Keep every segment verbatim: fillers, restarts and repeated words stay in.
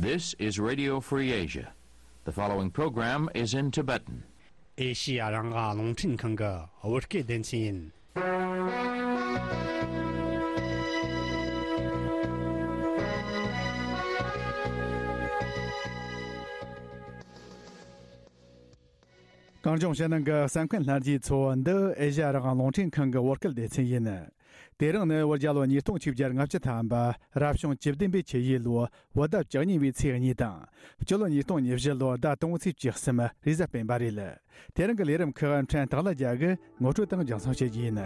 This is Radio Free Asia. The following program is in Tibetan. ཨེ་ཤི་ཡ་རང་དབང་རླུང་འཕྲིན་ཁང་གི་བོད་སྐད་སྡེ་ཚན་ཡིན། གངས་ལྗོངས་ཕྱི་ནང་གི་གསན་མཁན་ལྷན་རྒྱས་ཚོ། འདི་ཨེ་ཤ་ཡ་རང་དབང་རླུང་འཕྲིན་ཁང་གི་བོད་སྐད་སྡེ་ཚན་ཡིན། དེ་རིང་ནི་བོད་རྒྱལ་ལོ་ཉིས་སྟོང་ཆིག་བརྒྱ་ལྔ་བཅུ་ཐམ་པ། རབ་བྱུང་བཅུ་བདུན་པའི་ཆུ་ཡོས་ལོའི་བོད་ཟླ་བཅུ་གཉིས་པའི་ཚེས་གཉིས་དང་། སྤྱི་ལོ་ཉིས་སྟོང་ཉེར་བཞི་ལོའི་ཟླ་དང་པོའི་ཚེས་བཅུ་གསུམ། རེས་གཟའ་སྤེན་པ་རེད། དེ་རིང་གི་ལས་རིམ་ཁག་ཕྲན་སྟག་ལྷ་རྒྱལ་གྱིས་ངོ་སྤྲོད་དང་རྒྱང་སྲིང་བྱེད་རྒྱུ་ཡིན།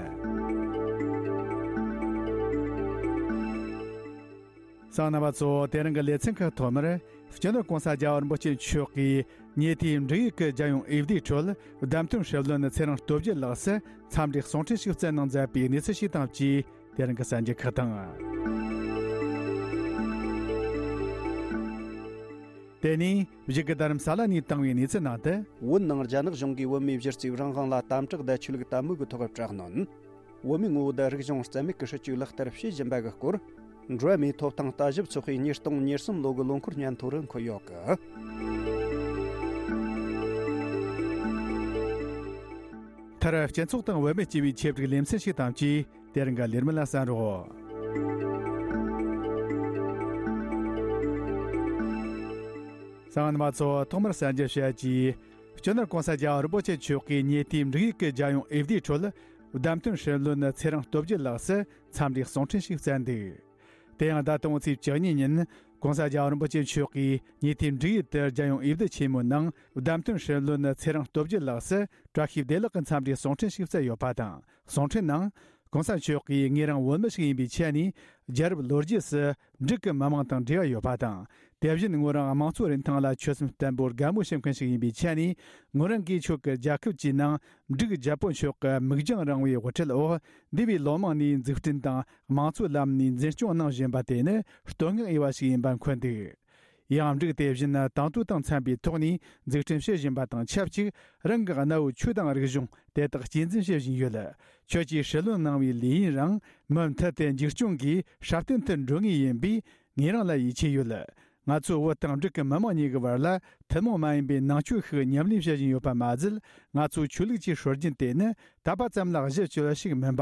གསན་མཁན་རྣམ་པ་ཚོ། དེ་རིང་གི་ལེ་ཚན་ཁག་ཐོག་མར། སྤྱི་ནོར་༸གོང་ས་༸རྒྱལ་བ་རིན་པོ་ཆེ་མཆོག་གིས་ཉེ་དུས་འབྲུག་ཡུལ་གྱི་རྒྱལ་ཡོངས་འོས་བསྡུའི་ཁྲོད། བདམས་ཐོན་སྲིད་བློན་ཚེ་རིང་སྟོབས་རྒྱལ་ལགས་སུ་འཚམས་འདྲིའི་གསུང་འཕྲིན་ཞིག་བསྩལ་གནང་མཛད་པའི་གནས་ཚུལ་ཞིག་དང་བཅས། དེ་རིང་གི་གསར་འགྱུར་ཁག་དང་། དེ་ནས་གཞུག་གི་རྡ་རམ་ས་ལ་ནས་བཏང་བའི་གནས་ཚུལ་ནང་དུ། བོད་ནང་རྒྱ་ནག་གཞུང་གིས་བོད་མིའི་གཞི་རྩའི་རང་དབང་ལ་དམ་དྲག་དང་ཆོས་ལུགས་དད་མོས་ཀྱི་ཐོག་དྲག་གནོན། བོད་མིའི་ངོ་བོ་དང་རིག་གཞུང་རྩ་མེད་ཀྱི་སྲིད་ཇུས་ལག་བསྟར་བྱེད་བཞིན་པ་གི་སྐོར། འགྲོ་བ་མིའི་ཐོབ་ཐང་ལྟ་ཞིབ་ཚོགས་པས་ཉིས་སྟོང་ཉེར་གསུམ་ལོ་གི་ལོ་འཁོར་སྙན་ཐོ་རུ་འཁོད་ཡོད་གི། མཐར་སྤྱི་ཚོགས་དང་བུད་མེད་ཅེས་པའི་ཆེད་བསྒྲིགས་ལེ་ཚན་ཞིག་དང་བཅས། དེ་རིང་གི་ལས་རིམ་ལ་གསན་རོགས། གསན་མཁན་རྣམ་པ་ཚོ། ཐོག་མར་གསར་འགྱུར་བཤད་ཀྱིས། སྤྱི་ནོར་༸གོང་ས་༸རྒྱལ་བ་རིན་པོ་ཆེ་མཆོག་གིས་ཉེ་དུས་འབྲུག་ཡུལ་གྱི་རྒྱལ་ཡོངས་འོས་བསྡུའི་ཁྲོད། བདམས་ཐོན་སྲིད་བློན་ཚེ་རིང་སྟོབས་རྒྱལ་ལགས་སུ་འཚམས་འདྲིའི་གསུང་འཕྲིན་ཞིག་བསྩལ་འདུག་དེ་ཡང་ཟླ་དང་པོའི་ཚེས་བཅུ་གཉིས་ཉིན། ༸གོང་ས་༸རྒྱལ་བ་རིན་པོ་ཆེ་མཆོག་གིས་ཉེ་དུས་འབྲུག་ཡུལ་དུ་རྒྱལ་ཡོངས་འོས་བསྡུ་ཆེན་མོའི་ནང་བདམས་ཐོན་སྲིད་བློན་ཚེ་རིང་སྟོབས་རྒྱལ་ལགས་སུ་བཀྲ་ཤིས་བདེ་ལེགས་ཀྱི་འཚམས་འདྲིའི་གསུང་འཕྲིན་ཞིག་བསྩལ་ཡོད་པ་དང་། གསུང་འཕྲིན་ནང་། ༸གོང་ས་མཆོག་གིས་ངེད་རང་བོད་མི་ཞིག་ཡིན་པའི་ཆ་ནས། རྒྱལ་རབས་ལོ་རྒྱུས་སུ་འབྲུག་གི་མི་དམངས་དང་འབྲེལ་བ་ཡོད་པ་དང་། དེ་བཞིན་ངོས་རང་དམངས་གཙོ་རིན་ཐང་ལ་ཆོད་སེམས་བརྟན་པོར་དགའ་མོས་བྱེད་མཁན་ཞིག་ཡིན་པའི་ཆ་ནས། ངོས་རང་གིས་ཁྱོད་ཀྱི་རྒྱལ་ཁབ་ཀྱི་ནང་། འབྲུག་རྒྱལ་པོ་མཆོག་གི་མིག་རྒྱང་རིང་བའི་དབུ་ཁྲིད་འོག་འདས་པའི་ལོ་མང་ནས་འཛུགས་སྐྲུན་དང་དམངས་གཙོའི་ལམ་ནས་འཛིན་སྐྱོང་གནང་བཞིན་པ་དེ་ནི་བསྟོད་བསྔགས་འོས་པ་ཞིག་ཡིན་པ་འཁོད་འདུག་ཡང་འབྲུག་དེ་བཞིན་དང་དུས་དང་འཚམས་པའི་ཐོག་ནས་འཛུགས་སྐྲུན་བྱེད་བཞིན་པ་དང་ཆབས་ཅིག་རང་གི་གནའ་བོའི་ཆོས་དང་རིག་གཞུང་དེ་དག་གཅེས་འཛིན་བྱེད་བཞིན་ཡོད། ཁྱོད་ཀྱིས་སྲིད་བློན་གནང་བའི་ལས་ཡུན་རིང་མུ་མཐུད་དེ་འཛུགས་སྐྱོང་གིས་སྲ་བརྟན་དུ་འགྲོ་ངེས་ཡིན་པས། ངེད་རང་ལ་ཡིད་ཆེས་ཡོད། ང་ཚོས་བོད་དང་འབྲུག་གི་མི་དམངས་གཉིས་ཀྱི་བར་ལ་ཐུན་མོང་མ་ཡིན་པའི་ནང་ཆོས་ཤིག་ཉམས་ལེན་བྱེད་བཞིན་ཡོད་པ་མ་ཟད། ང་ཚོའི་ཆོས་ལུགས་ཀྱི་སྲོལ་རྒྱུན་དེ་ནི་དད་པ་ཙམ་ལ་གཞི་བཅོལ་བ་ཞིག་མིན་པ།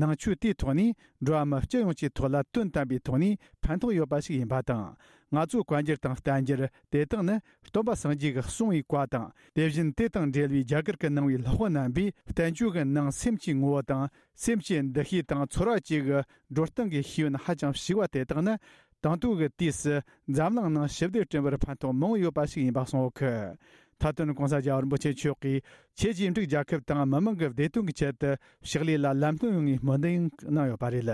ནང་ཆོས་དེའི་ཐོག་ནས་འགྲོ་བ་མི་སྤྱི་ཡོངས་ཀྱི་ཐོག་ལ་དོན་དམ་པའི་ཐོག་ནས་ཕན་ཐོགས་ཡོད་པ་ཞིག་ཡིན་པ་དང་། ང་ཚོའི་བཀའ་འགྱུར་དང་བསྟན་འགྱུར་དེ་དག་ནི་སྟོན་པ་སངས་རྒྱས་ཀྱིས་གསུངས་པའི་བཀའ་དང་། དེ་བཞིན་དེ་དང་འབྲེལ་བའི་རྒྱ་གར་གྱིས་གནང་བའི་ལྷག་པ་རྣམ་པའི་བསྟན་བཅོས་ཀྱི་ནང་སེམས་ཀྱི་ངོ་བོ་དང་། སེམས་ཀྱི་འདུ་ཤེས་དང་ཚོར་བ་བཅས་ཀྱི་འགྲོ་སྟངས་ཀྱི་ཤེས་ཡོན་ཧ་ཅང་ཞིབ་པ་དེ་དག་ནི། དང་ཐོག་གི་དུས་སུ་འཛམ་གླིང་ནང་ཞི་བདེ་བསྐྲུན་པར་ཕན་ཐོགས་མང་བོ་ཡོད་པ་ཞིག་ཡིན་པ་གསུངས་ཡོད་ཀི། མཐའ་དོན་༸གོང་ས་༸རྒྱལ་བ་རིན་པོ་ཆེ་མཆོག་གིས་ཁྱེད་ཀྱིས་འབྲུག་རྒྱལ་ཁབ་དང་མི་དམངས་ཀྱི་བདེ་དོན་གྱི་ཆེད་དུ་ཕྱག་ལས་ལ་ལམ་སྟོན་ཡོང་བའི་སྨོན་འདུན་གནང་ཡོད་པ་རེད།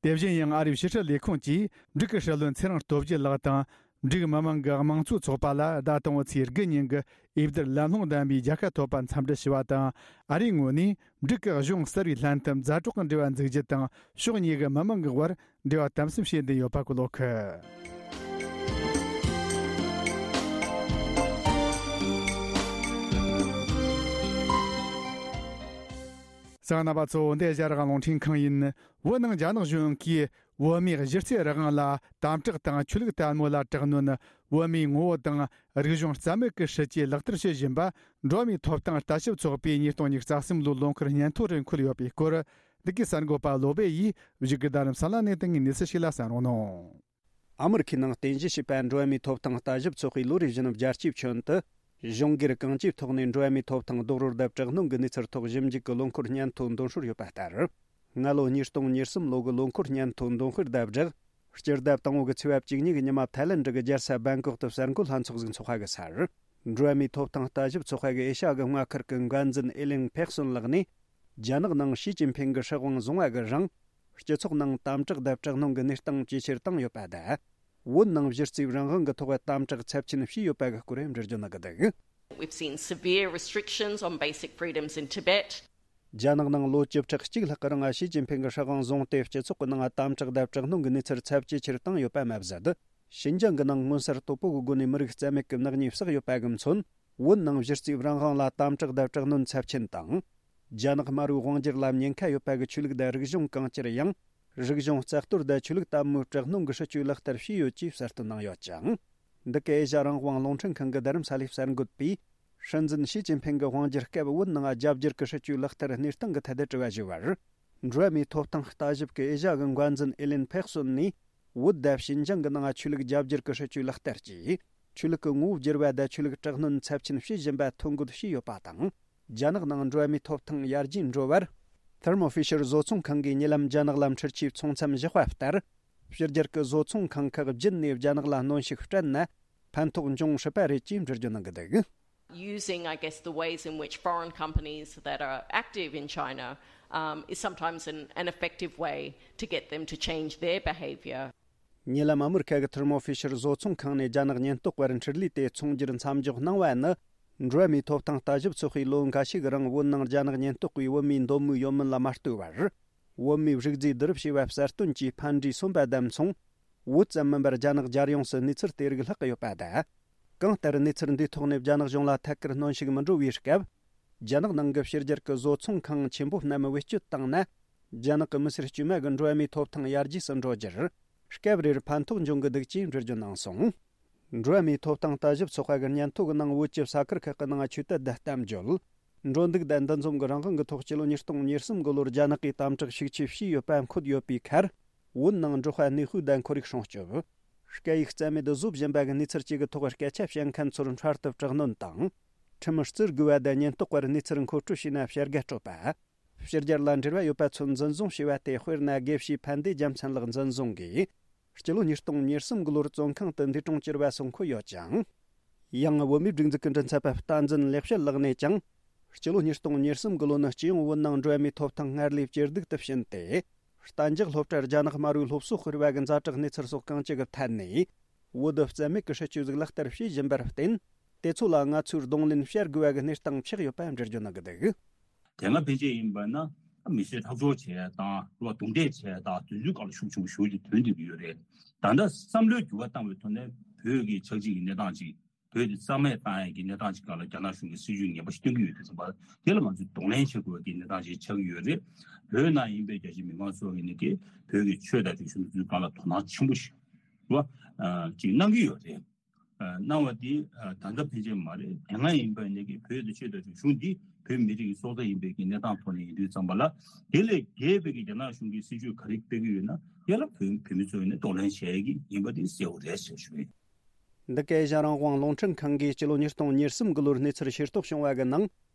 དེ་བཞིན་ཡང་ཨ་རིའི་ཕྱི་སྲིད་ལས་ཁུངས་ཀྱིས་འབྲུག་གི་སྲིད་བློན་ཚེ་རིང་སྟོབས་རྒྱལ་ལགས་དང་། འབྲུག་མི་དམངས་ཀྱི་དམངས་གཙོ་ཚོགས་པ་ལ་ཟླ་དང་པོའི་ཚེས་དགུ་ཉིན་གྱི་འོས་བསྡུར་ལམ་ལྷོང་ལྡན་པའི་རྒྱལ་ཁ་ཐོབ་པར་འཚམས་འདྲི་ཞུ་བ་དང་། ཨ་རིའི་ངོས་ནས་འབྲུག་གི་གཞུང་གསར་བའི་ལྷན་ཐབས་མཛའ་གྲོགས་ཀྱི་འབྲེལ་བ་འཛུགས་རྒྱུ་དང་། ཕྱོགས་གཉིས་ཀྱི་མི་དམངས་ཀྱི་དབར་འབྲེལ་བ་དམ་ཟབ་བྱེད་འདུན་ཡོད་པ་གོ་ལོག་གི། གསན་མཁན་རྣམ་པ་ཚོ། འདི་ཨེ་ཤ་ཡ་རང་དབང་རླུང་འཕྲིན་ཁང་ཡིན། བོད་ནང་རྒྱ་ནག་གཞུང་གིས་བོད་མིའི་གཞི་རྩའི་རང་དབང་ལ་དམ་དྲག་དང་ཆོས་ལུགས་དད་མོས་ལ་དྲག་གནོན། བོད་མིའི་ངོ་བོ་དང་རིག་གཞུང་རྩ་མེད་ཀྱི་སྲིད་ཇུས་ལག་བསྟར་བྱེད་བཞིན་པ། འགྲོ་བ་མིའི་ཐོབ་ཐང་ལྟ་ཞིབ་ཚོགས་པས་ཉིས་སྟོང་ཉི་ཤུ་རྩ་གསུམ་ལོའི་ལོ་འཁོར་སྙན་ཐོ་རུ་འཁོད་ཡོད་པའི་སྐོར། འདི་གའི་གསར་འགོད་པ་བློ་སྦེ་ཡིས་བཞུགས་སྒར་རྡ་རམ་ས་ལ་ནས་བཏང་བའི་གནས་ཚུལ་ཞིག་ལ་གསན་རོགས་གནང་། ཨ་མི་རི་ཁའི་ནང་རྟེན་གཞི་བྱས་པ་འགྲོ་བ་མིའི་ཐོབ་ཐང་ལྟ་ཞིབ་ཚོགས་པས་ལོ་རེ་བཞིན་རྒྱལ་སྤྱིའི་ཁྱོན་དུ་གཞུང་སྒེར་གང་ཅིའི་ཐོག་ནས་འགྲོ་བ་མིའི་ཐོབ་ཐང་རྡོག་རོལ་དང་དྲག་གནོན་གྱི་གནས་ཚུལ་ཐོག་ཞིབ་འཇུག་གི་ལོ་འཁོར་སྙན་ཐོ་འདོན་སྲོལ་ཡོད་པ་ལྟར། སྔ་ལོ་ཉིས་སྟོང་ཉེར་གསུམ་ལོ་གི་ལོ་འཁོར་སྙན་ཐོ་འདོན་སྤེལ་དང་སྦྲགས། སྤྱི་ཟླ་དང་པོ་གི་ཚེས་པ་བཅུ་གཉིས་ཀྱི་ཉི་མ་ཐའི་ལེན་ཌི་གི་རྒྱལ་ས་བེང་ཀོག་ཏུ་གསར་འགོད་ལྷན་ཚོགས་ཟིག་འཚོགས་པ་གི་སར། འགྲོ་བ་མིའི་ཐོབ་ཐང་ལྟ་ཞིབ་ཚོགས་པ་གི་ཨེ་ཤ་ཡ་གི་མངའ་ཁུལ་གྱི་འགན་འཛིན་ཨེ་ལིང་ཕེག་སོན་ལགས་ནས། རྒྱ་ནག་ནང་ཞི་ཅིན་ཕིང་གི་སྲིད་དབང་བཟུང་བ་གི་རིང་། སྤྱི་ཚོགས་ནང་དམ་དྲག་དང་དྲག་གནོན་གྱི་གནས་སྟངས་ཇེ་ཆེར་བཏང་ཡོད་པ་དང་། བོད་ནང་གཞི་རྩའི་རང་དབང་གི་ཐོག་དམ་དྲག་ཚབས་ཆེན་བྱས་ཡོད་པ་གི་སྐོར་འགྲེལ་བརྗོད་གནང་གི་འདུག། We've seen severe restrictions on basic freedoms in Tibet. རྒྱ་ནག་ནང་ལོ་བཅུ་ཕྲག་གཅིག་ལྷག་གི་རིང་ཞི་ཅིན་ཕིང་གི་སྲིད་དབང་བཟུང་སྟེ། སྤྱི་ཚོགས་ཀྱི་ནང་དམ་དྲག་དང་དྲག་གནོན་གྱི་གནས་ཚུལ་ཚབས་ཇེ་ཆེར་བཏང་ཡོད་པ་མ་ཟད། ཞིན་ཅང་གི་ནང་མངོན་གསལ་དོད་པོ་གི་སྒོ་ནས་མི་རིགས་རྩ་མེད་ཀྱི་ནག་ཉེས་བསགས་ཡོད་པ་གི་མཚོན། བོད་ནང་གཞི་རྩའི་རང་དབང་ལ་དམ་དྲག་དང་དྲག་གནོན་ཚབས་ཆེན་དང་། རྒྱ་ནག་དམར་པོའི་དབང་སྒྱུར་ལ་ཉེན་ཁ་ཡོད་པ་གི་ཆོས་ལུགས་དང་རིག་གཞུང་གང་ཅིར་ཡང་། རིག་གཞུང་རྩ་གཏོར་དང་ཆོས་ལུགས་དད་མོས་དྲག་གནོན་གྱི་སྲིད་ཇུས་ལག་བསྟར་བྱས་ཡོད་ཅེས་གསལ་སྟོན་གནང་ཡོད་ཅིང་། འདི་ག་ཨེ་ཤ་རང་དབང་རླུང་འཕྲིན་ཁང་གི་རྡ་རམ་ས་ལའི་གསར་འགོད་པས། སྲིད་འཛིན་ཞི་ཅིན་ཕིང་གི་དབང་སྒྱུར་སྐབས་བོད་ནང་རྒྱ་སྒྱུར་གྱི་སྲིད་ཇུས་ལག་བསྟར་གནས་སྟངས་ཀྱི་ཐད་དུ་དྲི་བ་ཞུས་པར། འགྲོ་བ་མིའི་ཐོབ་ཐང་ལྟ་ཞིབ་ཀྱི་ཨེ་ཤ་གི་འགོ་འཛིན་ཨེ་ལིན་ཕེག་སོན་ནས། བོད་དང་ཞིན་ཅང་གི་ནང་ཆོས་ལུགས་རྒྱ་སྒྱུར་གྱི་སྲིད་ཇུས་ལག་བསྟར་གྱིས། ཆོས་ལུགས་ཀྱི་ངོ་བོ་བསྒྱུར་བ་དང་ཆོས་ལུགས་དྲག་གནོན་ཚབས་ཆེན་བྱེད་བཞིན་པ་ཐོ་འགོད་བྱས་ཡོད་པ་དང་། རྒྱ་ནག་ནང་འགྲོ་བ་མིའི་ཐོབ་ཐང་ཡར་རྒྱས་འགྲོ་བར། ཐེར་མོ་ཧྥི་ཤར་བཟོ་ཚོང་ཁང་གིས་ཉེ་ལམ་རྒྱ་ནག་ལ་འཕྲུལ་ཆས་ཚོང་མཚམས་བཞག་པ་ལྟར། ཕྱི་རྒྱལ་གྱི་བཟོ་ཚོང་ཁང་ཁག་བརྒྱུད་ནས་རྒྱ་ནག་ལ་གནོན་ཤུགས་སྤྲད་ན། ཕན་ཐོགས་འབྱུང་སྲིད་པ་རེད་ཅེས་འགྲེལ་བརྗོད་གནང་གི་འདུག། Using, I guess, the ways in which foreign companies that are active in China um, is sometimes an, an effective way to get them to change their behavior. ཉེ་ལམ་ཨ་མི་རི་ཁ་གི་ཐེར་མོ་ཧྥི་ཤར་བཟོ་ཚོང་ཁང་ནས་རྒྱ་ནག་ཉེན་རྟོག་པར་འཕྲུལ་ལས་དེ་ཚོང་སྒྱུར་མཚམས་འཇོག་གནང་བ་ནི། འགྲོ་བ་མིའི་ཐོབ་ཐང་ལྟ་ཞིབ་ཚོགས་པས་ལོ་འགའ་ཤས་ཀྱི་རིང་བོད་ནང་རྒྱ་ནག་ཉེན་རྟོག་པས་བོད་མིའི་འདོད་མོས་ཡོད་མིན་ལ་མ་ལྟོས་པར། བོད་མིའི་རིགས་རྫས་བསྡུ་རུབ་བྱས་པ་གསལ་སྟོན་གྱིས་ཕན་འབྲས་སོན་པ་དང་མཚུངས། བོད་ཙམ་མིན་པར་རྒྱ་ནག་རྒྱལ་ཡོངས་སུ་གནས་ཚུལ་དེ་རིགས་ལྷག་གི་ཡོད་པ་དང་། གང་ལྟར་གནས་ཚུལ་འདིའི་ཐོག་ནས་རྒྱ་ནག་གཞུང་ལ་ཐད་ཀར་གནོན་ཤུགས་མི་འགྲོ་བའི་སྐབས། རྒྱ་ནག་ནང་གི་ཕྱི་རྒྱལ་གྱི་བཟོ་ཚོང་ཁང་ཆེན་པོ་རྣམས་བེད་སྤྱོད་བཏང་ན། རྒྱ་ནག་གི་མི་སེར་དཀྱུས་མ་གི་འགྲོ་བ་མིའི་ཐོབ་ཐང་ཡར་རྒྱས་སུ་འགྲོ་རྒྱུར། སྐབས་རེར་ཕན་ཐོགས་འབྱུང་གི་འདུག་ཅེས་འགྲེལ་བརྗོད་གནང་སོང་། འགྲོ་བ་མིའི་ཐོབ་ཐང་ལྟ་ཞིབ་ཚོགས་པ་གི་སྙན་ཐོ་གི་ནང་བོད་ཀྱི་ས་ཁུལ་ཁག་གི་ནང་ཆོས་དད་དང་གཏམ་བརྗོད། འགྲོ་འདུག་དང་འདུ་འཛོམས་ཀྱི་རང་དབང་གི་ཐོག་སྤྱི་ལོ་ཉིས་སྟོང་ཉེར་གསུམ་གི་ལོར་རྒྱ་ནག་གིས་དམ་དྲག་ཤུགས་ཆེ་བྱས་ཡོད་པ་འཁོད་ཡོད་པའི་ཁར། བོད་ནང་འབྲོག་པ་གནས་སྤོས་དང་ཁོར་ཡུག་སྲུང་སྐྱོབ། སྐད་ཡིག་རྩ་མེད་བཟོ་བཞིན་པ་གི་གནས་ཚུལ་བཅས་ཀྱི་ཐོག་སྐད་ཆ་བཤད་མཁན་ཚོར་འཕྲལ་དུ་དྲག་གནོན་དང་། ཁྲིམས་བརྩི་དགོས་པ་དང་ཉེན་རྟོག་པར་གནས་ཚུལ་མཁོ་སྤྲོད་བྱས་ན་བྱ་དགའ་སྤྲོད་པ། ཕྱི་རྒྱལ་ལ་འབྲེལ་བ་ཡོད་པ་ཚོ་འཛིན་བཟུང་བྱས་པ་དེ་དཔེར་ན་དགེ་བཤེས་ཕན་བདེ་རྒྱལ་མཚན་ལགས་འཛིན་བཟུང་གིས། སྤྱི་ལོ་ཉིས་སྟོང་ཉེར་གསུམ་གི་ལོར་བཙོན་ཁང་དུ་འདས་གྲོངས་གྱུར་བ་སོགས་འཁོད་ཡོད་ཅིང་། ཡང་བོད་མིའི་སྒྲིག་འཛུགས་ཀྱི་མགྲིན་ཚབ་པ་བསྟན་འཛིན་ལེགས་བཤད་ལགས་ནས་ཀྱང་། སྤྱི་ལོ་ཉིས་སྟོང་ཉེར་གསུམ་གི་ལོ་ནི་སྤྱི་ཡོངས་བོད་ནང་འགྲོ་བ་མིའི་ཐོབ་ཐང་སྔར་ལས་ཇེ་སྡུག་ཏུ་ཕྱིན་ཏེ། གཏན་འཇགས་སློབ་གྲྭར་རྒྱ་ནག་དམར་པོའི་སློབ་གསོ་སྤེལ་བ་གི་ཛ་དྲག་གནས་ཚུལ་སོགས་གང་ཅི་གི་ཐད་ནས། བོད་དུ་རྩ་མེད་ཀྱི་སྲིད་ཇུས་ཟིག་ལག་བསྟར་བྱེད་བཞིན་པར་བརྟེན། དེ་ཚོ་ལ་ང་ཚོས་གདོང་ལེན་བྱ་དགོས་པ་གི་གནས་སྟངས་ཆགས་ཡོད་པ་འགྲེལ་བརྗོད་གནང་གི་འདུག། དེ་སྔ་ཕན་ཆད་ཡིན་པ་ན་མི་ཚེ་ཐག་གཅོད་བྱས་དང་རུ་བ་རྡུང་རྡེག་བྱས་དང་དུས་ཚོད་སྐབས་ལ་ཤུགས་ཆེན་པོ་ཞེ་པོ་ཅིག་ཐོན་བསྡད་ཀྱི་ཡོད་རེད། ད་ལྟ་བསམ་བློའི་འགྱུར་བ་བཏང་བའི་ཐོག་ནས་བོད་ཀྱི་ཆགས་འཇིག་གི་གནས་སྟངས་ཅིག་བོད་དེ་རྩ་མེད་བཏང་ཡས་ཀྱི་གནས་སྟངས་ཅིག་སྒང་ལ་རྒྱ་ནག་གཞུང་གིས་སྲིད་ཇུས་ངན་པ་ཞིག་སྟོན་གྱི་ཡོད་དུས་ཙམ་པ་དེ་ལ་ང་ཚོས་གདོང་ལེན་བྱེད་དགོས་ཀྱི་གནས་སྟངས་ཅིག་ཆགས་ཀྱི་ཡོད་རེད། བོད་ནང་ཡིན་པའི་རྒྱ་ཆེ་མི་མང་ཚོ་ཡིན་ནི་དེ་བོད་ཀྱི་ཆོས་དང་རིག་གཞུང་དེ་ཚོའི་སྒང་ལ་དོ་སྣང་ཆེན་པོ་ཞིག་རེད་བ། ཅིག་གནང་གི་ཡོད་རེད། གནང་བ་འདི་ད་ལྟ་ཕན་ཆད་མ་རེད། དེ་སྔ་ཡིན་པ་ནས་ཀྱི་བོད་དུ་ཆོས་དང་རིག་གཞུང་འདི་བོད་མི་རིགས་ཀྱི་སྲོག་རྩ་ཡིན་པའི་གི་གནས་སྟངས་ཐོག་ནས་ཡིན་དུས་ཙམ་པ་ལ། དེ་ལས་བརྒལ་བའི་གི་རྒྱ་ནག་གཞུང་གིས་སྲིད་ཇུས་ག་རེ་སྤེལ་གྱི་ཡོད་ན་ཡ་ལ་བོད་བོད་མི་ཚོ་ཡིན་ན་གདོང་ལེན་བྱེད་ཀྱི་ཡིན་པ་དེ་གསལ་བོ་རེད་ཟེར་ཞུ་ཡིན། འདི་ག་ཨེ་ཤ་རང་དབང་རླུང་འཕྲིན་ཁང་གིས་སྤྱི་ལོ་ཉིས་སྟོང་ཉེར་གསུམ་གི་ལོར་གནས་ཚུལ་ཤེས་རྟོགས་བྱུང་བ་གི་ནང་།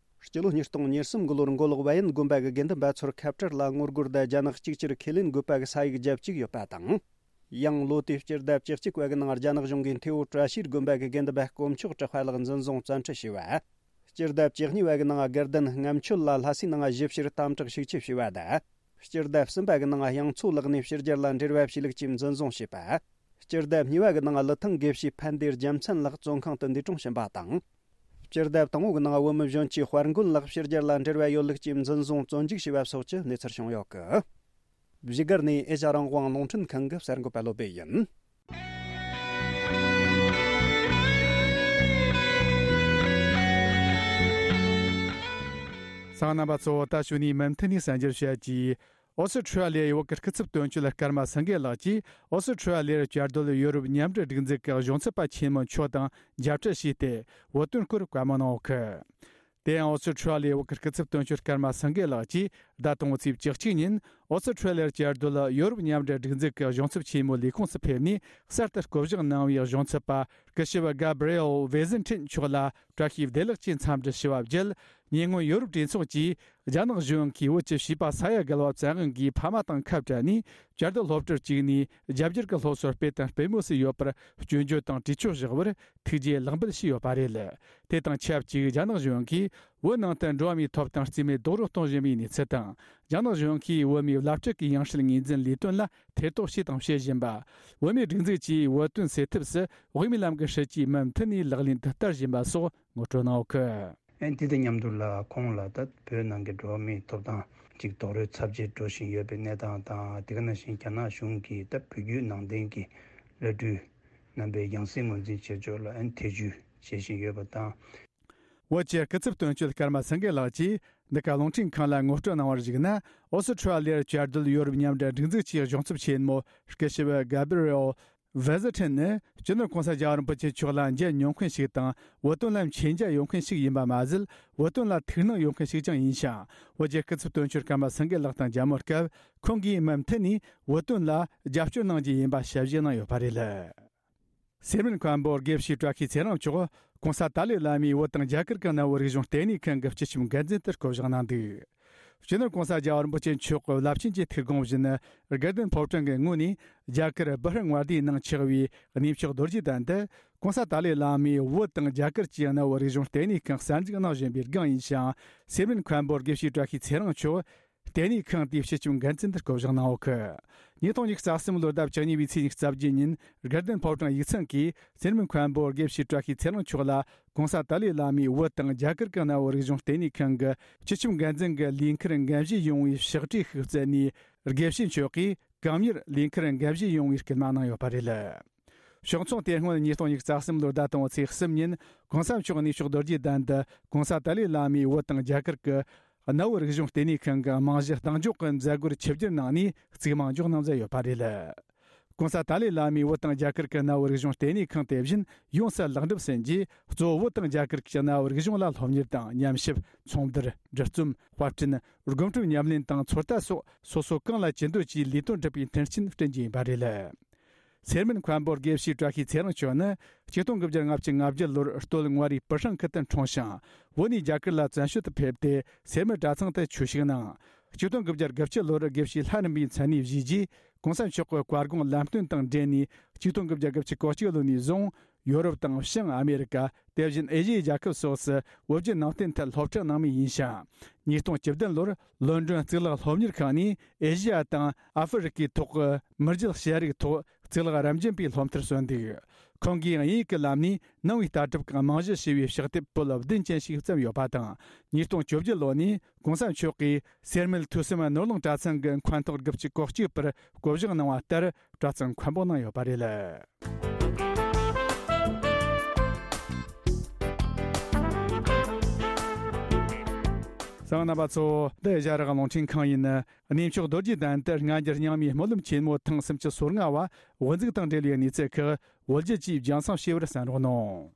སྤྱི་ལོ་ཉིས་སྟོང་ཉེར་གསུམ་གི་ལོར་མགོ་ལོག་བལ་ཡུལ་དགོན་པ་གི་དགེ་འདུན་པ་ཚོར་ཁ་བྲལ་ལ་ངོ་རྒོལ་དང་རྒྱ་ནག་གཅིག་གྱུར་ཁས་ལེན་དགོས་པ་གི་ས་ཡིག་བརྒྱབ་བཅུག་ཡོད་པ་དང་། ཡང་ལོ་དེའི་སྤྱི་ཟླ་བཅུ་གཅིག་པ་གི་ནང་རྒྱ་ནག་གཞུང་གིས་མཐེ་བོ་བཀྲ་ཤིས་དགོན་པ་གི་དགེ་འདུན་པ་དཀོན་མཆོག་གྲགས་པ་ལགས་འཛིན་བཟུང་བཙན་ཁྲིད་བྱས་པ། སྤྱི་ཟླ་བཅུ་གཉིས་པ་གི་ནང་དགའ་ལྡན་ལྔ་མཆོད་ལ་ལྷ་སའི་ནང་ཞིབ་བཤེར་དམ་དྲག་ཤུགས་ཆེ་བྱས་པ་དང་། སྤྱི་ཟླ་གསུམ་པ་གི་ནང་དབྱངས་མཚོ་ལགས་ནས་ཕྱི་རྒྱལ་ལ་འབྲེལ་བ་བྱས་ལུགས་ཀྱིས་འཛིན་བཟུང་བྱས་པ། སྤྱི་ཟླ་གཉིས་པ་གི་ནང་ཀླུ་ཐང་དགེ་བཤེས་ཕན་བདེ་རྒྱལ་མཚན་ལགས་བཙོན་ཁང་དུ་འདས་གྲོངས་ཕྱིན་པ་དང་། སྤྱི་ཟླ་དང་པོ་གི་ནང་བོད་མི་གཞོན་སྐྱེས་དཔལ་མགོན་ལགས་ཕྱི་རྒྱལ་ལ་འབྲེལ་བ་ཡོད་ལུགས་ཀྱིས་འཛིན་བཟུང་བཙོན་འཇུག་བྱས་པ་སོགས་ཀྱི་གནས་ཚུལ་བྱུང་ཡོད་སྐད། བཞུགས་སྒར་ནས་ཨེ་ཤ་རང་དབང་རླུང་འཕྲིན་ཁང་གི་གསར་འགོད་པ་བློ་བྷེ་ཡིན། གསན་མཁན་རྣམ་པ་ཚོ། ད་གཞུག་ནས་མུ་མཐུད་ནས་གསན་རྒྱུར་བྱ་རྒྱུ། ཨོ་སི་ཁྲུ་ལི་ཡའི་བོད་ཀྱི་སྐུ་ཚབ་དོན་གཅོད་ཀརྨ་སེང་གེ་ལགས་ཀྱིས་ཨོ་སི་ཁྲུ་ལི་ཡར་བཅའ་སྡོད་ཡོ་རོབ་མཉམ་འབྲེལ་སྒྲིག་འཛུགས་ཀྱི་གཞུང་ཚབ་པ་ཆེན་མོ་མཆོག་དང་མཇལ་འཕྲད་བྱས་ཏེ་བོད་དོན་སྐོར་བཀའ་མོལ་གནང་ཡོད་སྐད། དེ་ཡང་ཨོ་སི་ཁྲུ་ལི་ཡའི་བོད་ཀྱི་སྐུ་ཚབ་དོན་གཅོད་ཀརྨ་སེང་གེ་ལགས་ཀྱིས་ཟླ་དང་པོའི་ཚེས་བཅུ་གཅིག་ཉིན་ཨོ་སི་ཁྲུ་ལི་ཡར་བཅའ་སྡོད་ཡོ་རོབ་མཉམ་འབྲེལ་སྒྲིག་འཛུགས་ཀྱི་གཞུང་ཚབ་ཆེན་མོའི་ལས་ཁུངས་སུ་ཕེབས་ནས་གསར་དུ་བསྐོ་གཞག་གནང་བའི་གཞུང་ཚབ་པ་སྐུ་ཞབས་ག་བྷི་རི་ཨེལ་ཝེ་ཟིན་ཁྲིན་མཆོག་ལ་བཀྲ་ཤིས་བདེ་ལེགས་ཀྱི་འཚམས་འདྲི་ཞུ་བ་བརྒྱུད། ཉེ་སྔོན་ཡོ་རོབ་གྲོས་ཚོགས་ཀྱིས་རྒྱ་ནག་གཞུང་གིས་བོད་ཀྱི་བྱིས་པ་ས་ཡ་བརྒལ་བ་བཙན་དབང་གིས་ཕ་མ་དང་ཁ་བྲལ་ནས་བཅའ་སྡོད་སློབ་གྲྭར་བཅུག་ནས་རྒྱ་སྒྱུར་གྱི་སློབ་གསོ་སྤེལ་དང་སྤེལ་མུས་སུ་ཡོད་པར་སྐྱོན་བརྗོད་དང་གྲོས་ཆོད་བཞག་པར་ཐུགས་རྗེ་ལེགས་འབུལ་ཞུས་ཡོད་པ་རེད། དེ་དང་ཆབས་ཅིག་རྒྱ་ནག་གཞུང་གིས་བོད་ནང་དུ་འགྲོ་བ་མིའི་ཐོབ་ཐང་རྩིས་མེད་རྡོག་རོལ་གཏོང་བཞིན་པའི་གནས་ཚུལ་དང་། རྒྱ་ནག་གཞུང་གིས་བོད་མིའི་བླ་སྤྲུལ་གྱི་ཡང་སྲིད་ངོས་འཛིན་ལས་དོན་ལ་ཐེ་གཏོགས་བྱས་དང་བྱེད་བཞིན་པ། བོད་མིའི་སྒྲིག་འཛུགས་ཀྱིས་བོད་དོན་སེལ་ཐབས་སུ་དབུ་མའི་ལམ་གྱི་སྲིད་ཇུས་མུ་མཐུད་ནས་ལག་ལེན་དུ་བསྟར་བཞིན་པ་སོགས་ངོ་སྤྲོད་གནང་ཡོད་སྐད། ཨན་དེ་དང་མཉམ་དུ་ལ་ཁོང་ལ་ད་བོད་ནང་གི་འགྲོ་བ་མིའི་ཐོབ་ཐང་ཅིག་རྡོག་རོལ་ཚབས་ཆེ་འགྲོ་བཞིན་ཡོད་པའི་གནས་སྟངས་དང་། དེ་ག་ནང་བཞིན་རྒྱ་ནག་གཞུང་གིས་ད་བོད་བརྒྱུད་ནང་བསྟན་གྱི་བླ་སྤྲུལ་རྣམ་པའི་ཡང་སྲིད་ངོས་འཛིན་བྱེད་ཕྱོགས་ལ་ཨན་ཐེ་བྱུས་བྱེད་བཞིན་ཡོད་པ་དང་། བོད་ཀྱི་སྐུ་ཚབ་དོན་གཅོད་ཀརྨ་སེང་གེ་ལགས་ཀྱིས་འདི་ག་རླུང་འཕྲིན་ཁང་ལ་ངོ་སྤྲོད་གནང་བར་གཞིགས་ན། ཨོ་སི་ཁྲུ་ལི་ཡར་བཅའ་སྡོད་ཡོ་རོབ་མཉམ་འབྲེལ་སྒྲིག་འཛུགས་ཀྱི་གཞུང་ཚབ་ཆེན་མོ་སྐུ་ཞབས་ག་བྷི་རི་ཨེལ་ ཝེ་ཟི་ཁྲིན་ནི་སྤྱི་ནོར་གོང་ས་རྒྱལ་བ་རིན་པོ་ཆེ་མཆོག་ལ་མཇལ་མྱོང་མཁན་ཞིག་དང་། བོད་དོན་ལ་མཁྱེན་རྒྱ་ཡོད་མཁན་ཞིག་ཡིན་པ་མ་ཟད། བོད་དོན་ལ་ཐུགས་སྣང་ཡོད་མཁན་ཞིག་ཀྱང་ཡིན་ཞིང་། བོད་རྒྱལ་སྐུ་ཚབ་དོན་གཅོད་ཀརྨ་སེང་གེ་ལགས་དང་མཇལ་མོལ་སྐབས། ཁོང་གིས་མུ་མཐུད་ནས་བོད་དོན་ལ་རྒྱབ་སྐྱོར་གནང་རྒྱུ་ཡིན་པ་ཞལ་བཞེས་གནང་ཡོད་པ་རེད། སེར་སྨད་མཁན་པོ་དགེ་བཤེས་བཀྲ་ཤིས་ཚེ་རིང་མཆོག་གོང་ས་ཏཱ་ལའི་བླ་མའི་བོད་དང་རྒྱ་གར་གྱི་གནའ་བོའི་རིག་གཞུང་ལྟེ་གནས་ཁང་གི་སྤྱི་ཁྱབ་འགན་འཛིན་དུ་བསྐོ་གཞག་གནང་འདུག་སྤྱི་ནོར་གོང་ས་རྒྱལ་བ་རིན་པོ་ཆེ་མཆོག་གི་རླབས་ཆེན་གྱི་ཐུགས་དགོངས་བཞིན། དགའ་ལྡན་ཕོ་བྲང་གི་ངོས་ནས་རྒྱ་གར་སྦི་ཧར་མངའ་སྡེའི་ནང་ཆགས་པའི་གནས་མཆོག་རྡོ་རྗེ་གདན་དུ། གོང་ས་ཏཱ་ལའི་བླ་མས་བོད་དང་རྒྱ་གར་གྱི་གནའ་བོའི་རིག་གཞུང་ལྟེ་གནས་ཁང་གསར་འཛུགས་གནང་བཞིན་པའི་སྒང་ཡིན་ཞིང་། སེར་སྨད་མཁན་པོ་དགེ་བཤེས་བཀྲ་ཤིས་ཚེ་རིང་མཆོག་ལྟེ་གནས་ཁང་དེའི་སྤྱི་ཁྱབ་འགན་འཛིན་དུ་བསྐོ་གཞག་གནང་ཡོད་གི། ཉིས་སྟོང་ཉི་ཤུ་རྩ་གསུམ་ལོར་ཟླ་བཅུ་གཉིས་པའི་ཚེས་ཉི་ཤུ་རྩ་བརྒྱད་ཉིན། དགའ་ལྡན་ཕོ་བྲང་ཡིག་ཚང་གིས་སེར་སྨད་མཁན་པོ་དགེ་བཤེས་བཀྲ་ཤིས་ཚེ་རིང་མཆོག་ལ། གོང་ས་ཏཱ་ལའི་བླ་མའི་བོད་དང་རྒྱ་གར་གྱི་གནའ་བོའི་རིག་གཞུང་ལྟེ་གནས་ཁང་གི་སྤྱི་ཁྱབ་འགན་འཛིན་གྱི་ལས་འཁུར་འགན་བཞེས་ཡོང་བའི་ཕྱག་བྲིས་ཤིག་བསྩལ་ནས། དགེ་བཤེས་མཆོག་གིས་གང་མྱུར་ལས་འཁུར་འགན་བཞེས་ཡོང་བའི་སྐུལ་མ་གནང་ཡོད་པ་རེད། ཕྱོགས་མཚུངས། དེ་སྔོན་ཉིས་སྟོང་ཉི་ཤུ་རྩ་གསུམ་ལོར་ཟླ་དང་པོའི་ཚེས་གསུམ་ཉིན། གོང་ས་མཆོག་གནས་མཆོག་རྡོ་རྗེ་གདན་དུ་གོང་ས་ཏཱ་ལའི་བླ་མས་བོད་དང་རྒྱ་གར་གྱི་གནའ་བོའི་རིག་གཞུང་ལྟེ་གནས་ཁང་གི་རྨང་གཞི་གདེང་འཇོག་གི་མཛད་སྒོར་ཆིབས་བསྒྱུར་གནང་ནས་གཙིགས་མང་འཇོག་གནང་མཛད་ཡོད་པ་རེད། གོང་ས་ཏཱ་ལའི་བླ་མས་བོད་དང་རྒྱ་གར་གྱི་གནའ་བོའི་རིག་གཞུང་ལྟེ་གནས་ཁང་དེ་བཞིན་ཡོངས་སུ་ལེགས་འགྲུབ་ཟིན་རྗེས། གཙོ་བོ་བོད་དང་རྒྱ་གར་གྱི་གནའ་བོའི་རིག་གཞུང་ལ་སློབ་གཉེར་དང་། ཉམས་ཞིབ། ཚོང་བསྡུར། འབྲི་རྩོམ། དཔར་སྐྲུན། སྒོམ་སྒྲུབ་ཉམས་ལེན་དང་ཚོད་ལྟ་སོགས་སོ་སོ་གང་ལ་ཅི་འདོད་ཀྱིས་ལས་དོན་སྒྲུབ་པའི་མཐུན་རྐྱེན་བསྐྲུན་རྒྱུ་ཡིན་པ་རེད། སེར་སྨད་མཁན་པོ་དགེ་བཤེས་བཀྲ་ཤིས་ཚེ་རིང་མཆོག་ནི་ཆིག་སྟོང་དགུ་བརྒྱ་ལྔ་བཅུ་ང་བརྒྱད་ལོར་སྟོད་མངའ་རིས་པི་ཧྲང་ཁུལ་དུ་འཁྲུངས་ཤིང་། བོད་ནས་རྒྱ་གར་ལ་བཙན་བྱོལ་དུ་ཕེབས་ཏེ། སེར་སྨད་གྲྭ་ཚང་དུ་ཆོས་ཞུགས་གནང་། ཆིག་སྟོང་དགུ་བརྒྱ་གྱ་བརྒྱད་ལོར་དགེ་བཤེས་ལྷ་རམས་པའི་མཚན་གནས་བཞེས་རྗེས། གོང་ས་མཆོག་གི་བཀའ་དགོངས་ལམ་སྟོན་དང་འབྲེལ་ནས། ཆིག་སྟོང་དགུ་བརྒྱ་གྱ་གོ་གཅིག་ལོ་ནས་བཟུང་། ཡོ་རོབ་དང་བྱང་ཨ་མེ་རི་ཀ། དེ་བཞིན་ཨེ་ཤི་ཡའི་རྒྱལ་ཁབ་སོགས་སུ་བོད་བརྒྱུད་ནང་བསྟན་ཐད་སློབ་ཁྲིད་གནང་མུས་ཡིན་ཞིང་། ཉིས་སྟོང་བཅུ་བདུན་ལོར་ལོན་ཌོན་གཙུག་ལག་སློབ་གཉེར་ཁང་ནས་ཨེ་ཤི་ཡ་དང་ཨ་ཧྥེ་རི་ཀའི་ཐོག་གི་མི་རྒྱུད་ཤེས་རིག་ཐོག་གཙུག་ལག་རབ་འབྱམས་པའི་སློབ་མཐར་སོན་འདུག་ཁོང་གིས་དབྱིན་ཡིག་གི་ལམ་ནས་ནང་པའི་ལྟ་གྲུབ་ཀྱི་རྨང་གཞི་བྱས་པའི་ཕྱག་དེབ་པོད་བདུན་ཅན་ཞིག་བརྩམས་ཡོད་པ་དང་། ཉིས་སྟོང་བཅོ་བརྒྱད་ལོ་ནས་གོང་ས་མཆོག་གིས་སེར་སྨད་ཐོས་བསམ་ནོར་གླིང་གྲྭ་ཚང་གི་མཁན་ཐོག་དགུ་བཅུ་གོ་གཅིག་པར་བསྐོ་གཞག་གནང་བ་ལྟར། གྲྭ་ཚང་མཁན་པོ་གནང་ཡོད་པ་རེད། གསན་མཁན་རྣམ་པ་ཚོ། འདི་ཨེ་ཤ་ཡ་རང་དབང་རླུང་འཕྲིན་ཁང་ཡིན། གནས་མཆོག་རྡོ་རྗེ་གདན་དུ་སྔ་འགྱུར་རྙིང་མའི་སྨོན་ལམ་ཆེན་མོ་ཐེངས་སུམ་ཅུ་སོ་ལྔ་བ་དབུ་འཛུགས་དང་འབྲེལ་བའི་གནས་ཚུལ་ཁག་བོད་རྒྱུད་ཀྱིས་རྒྱང་སྲིང་ཞུས་པར་གསན་རོགས་གནང་།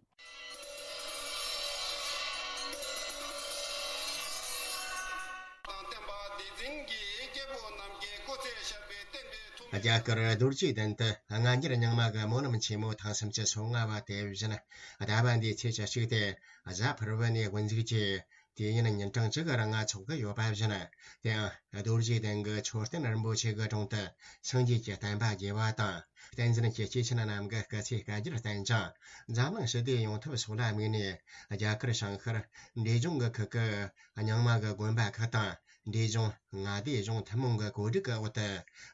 དང་བསྟན་པ་བདེ་འཛིན་གྱི་སྐྱེས་བུ་རྣམས་ཀྱི་སྐུ་ཚེ་ཞབས་པད་བརྟན་པའི་ཐོག་རྒྱ་གར་རྡོ་རྗེ་གདན་དུ་སྔ་འགྱུར་རྙིང་མ་གི་སྨོན་ལམ་ཆེན་མོ་ཐེངས་སུམ་ཅུ་སོ་ལྔ་བ་དེ་བཞིན་ཟླ་བ་འདིའི་ཚེས་བཅུ་གཅིག་སྟེ་གཟའ་ཕུར་བུ་ནས་དབུ་འཛུགས་ཀྱིས་དུས་ཡུན་ཉིན་གྲངས་གཅིག་གི་རིང་འཚོགས་ཀྱི་ཡོད་པ་བཞིན། དེའང་རྡོ་རྗེ་གདན་གྱི་མཆོད་རྟེན་རིན་པོ་ཆེ་གི་དྲུང་དུ་སངས་རྒྱས་ཀྱི་བསྟན་པ་རྒྱས་པ་དང་། བསྟན་འཛིན་གྱི་སྐྱེས་ཆེན་རྣམས་ཀྱི་སྐུ་ཚེ་བསྐལ་བརྒྱར་བརྟན་ཅིང་། འཛམ་གླིང་ཞི་བདེ་ཡོང་ཐབས་སོགས་ལ་དམིགས་ནས། རྒྱ་གར་བྱང་ཤར་འབྲས་ལྗོངས་ཀྱི་ཁུལ་གྱི་རྙིང་མ་གི་དགོན་པ་ཁག་དང་། འབྲས་ལྗོངས་མངའ་སྡེ་གཞུང་ཐུན་མོང་གི་གོ་སྒྲིག་གི་འོག་ཏུ།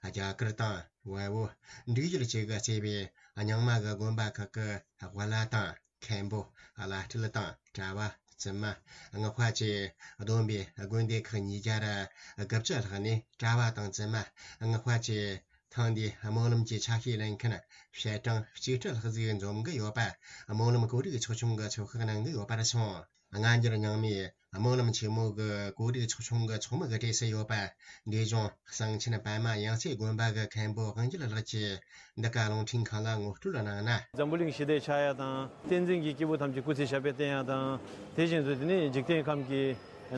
རྒྱ་གར་དང་བལ་པོ་འབྲུག་ཡུལ་བཅས་ཀྱིས་གཙོས་པའི་རྙིང་མ་གི་དགོན་པ་ཁག་གི་དབུ་བླ་དང་། མཁན་པོ། བླ་སྤྲུལ་དང་གྲྭ་བ། བཙུན་མ། སྔགས་པ་བཅས་བསྡོམས་པས་དགོན་སྡེ་ཁག་ཉིས་བརྒྱ་དགུ་བཅུ་ལྷག་ནས་གྲྭ་བ་དང་བཙུན་མ། སྔགས་པ་བཅས་ཐེངས་འདིའི་སྨོན་ལམ་གྱི་ཆ་ཤས་ལེན་མཁན་བཤད་གྲངས་གཅིག་ཁྲི་ལྷག་ཟིག་འཛོམས་ཀྱི་ཡོད་པ། སྨོན་ལམ་གོ་སྒྲིག་ཚོགས་ཆུང་གིས་ཚོད་དཔག་གནང་གི་ཡོད་པར་སོང་། སྔ་འགྱུར་རྙིང་མའི་སྨོན་ལམ་ཆེན་མོ་གི་གོ་སྒྲིག་ཚོགས་ཆུང་གི་ཚོགས་མི་གི་གྲས་སུ་ཡོད་པ། འབྲས་ལྗོངས་གསང་ཆེན་པདྨ་ཡང་རྩེ་དགོན་པ་གི་མཁན་པོ་དབང་རྒྱལ་ལགས་ཀྱིས་འདི་ག་རླུང་འཕྲིན་ཁང་ལ་ངོ་སྤྲོད་གནང་ན། འཛམ་བུ་གླིང་ཞི་བདེ་ཆགས་ཡ་དང་། བསྟན་འཛིན་གྱི་སྐྱེས་བུ་ཐམས་ཅད་སྐུ་ཚེ་ཞབས་པད་བརྟན་ཡ་དང་། དེ་བཞིན་དུ་དེ་ནི་འཇིག་རྟེན་ཁམས་ཀྱི་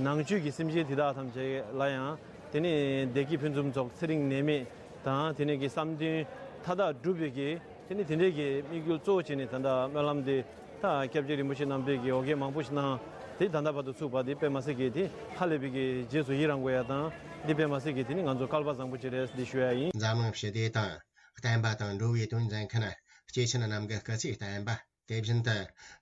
ནང་བཅུད་ཀྱི་སེམས་ཅན་དེ་དག་ཐམས་ཅད་ལ་ཡང་དེ་ནི་བདེ་སྐྱིད་ཕུན་སུམ་ཚོགས། ཚེ་རིང་ནད་མེད་དང་། དེ་ནི་གི་བསམ་དོན་མཐའ་དག་འགྲུབ་པའི་གི་དེ་ནི་དེ་འདྲའི་གི་དམིགས་ཡུལ་གཙོ་བོ་བྱས་ནས་ད་ལྟ་སྨོན་ལམ་དེ་ད་སྐྱབས་རྗེ་རིན་པོ་ཆེ་རྣམ་པས་ཀྱི་འོ་བརྒྱལ་མང་པོ་ཞིག་གནང་། དེ་ད་ལྟ་བར་དུ་ཚུགས་པ་དེ་དཔེ་མ་སྲིད་ཀྱི་དེ་ཧ་ལས་པའི་གི་རྗེས་སུ་ཡི་རང་དགོས་ཡ་དང་། འདི་དཔེ་མ་སྲིད་ཀྱི་དེ་ནི་ང་ཚོ་སྐལ་པ་བཟང་པོ་ཅིག་རེད་འདི་ཞུ་ཡ་ཡིན། འཛམ་གླིང་ཞི་བདེ་དང་བསྟན་པ་དང་འགྲོ་བའི་དོན་མཛད་མཁན་སྐྱེས་ཆེན་རྣམས་ཀྱི་སྐུ་ཚེ་བརྟན་པ། དེ་བཞིན་དུ་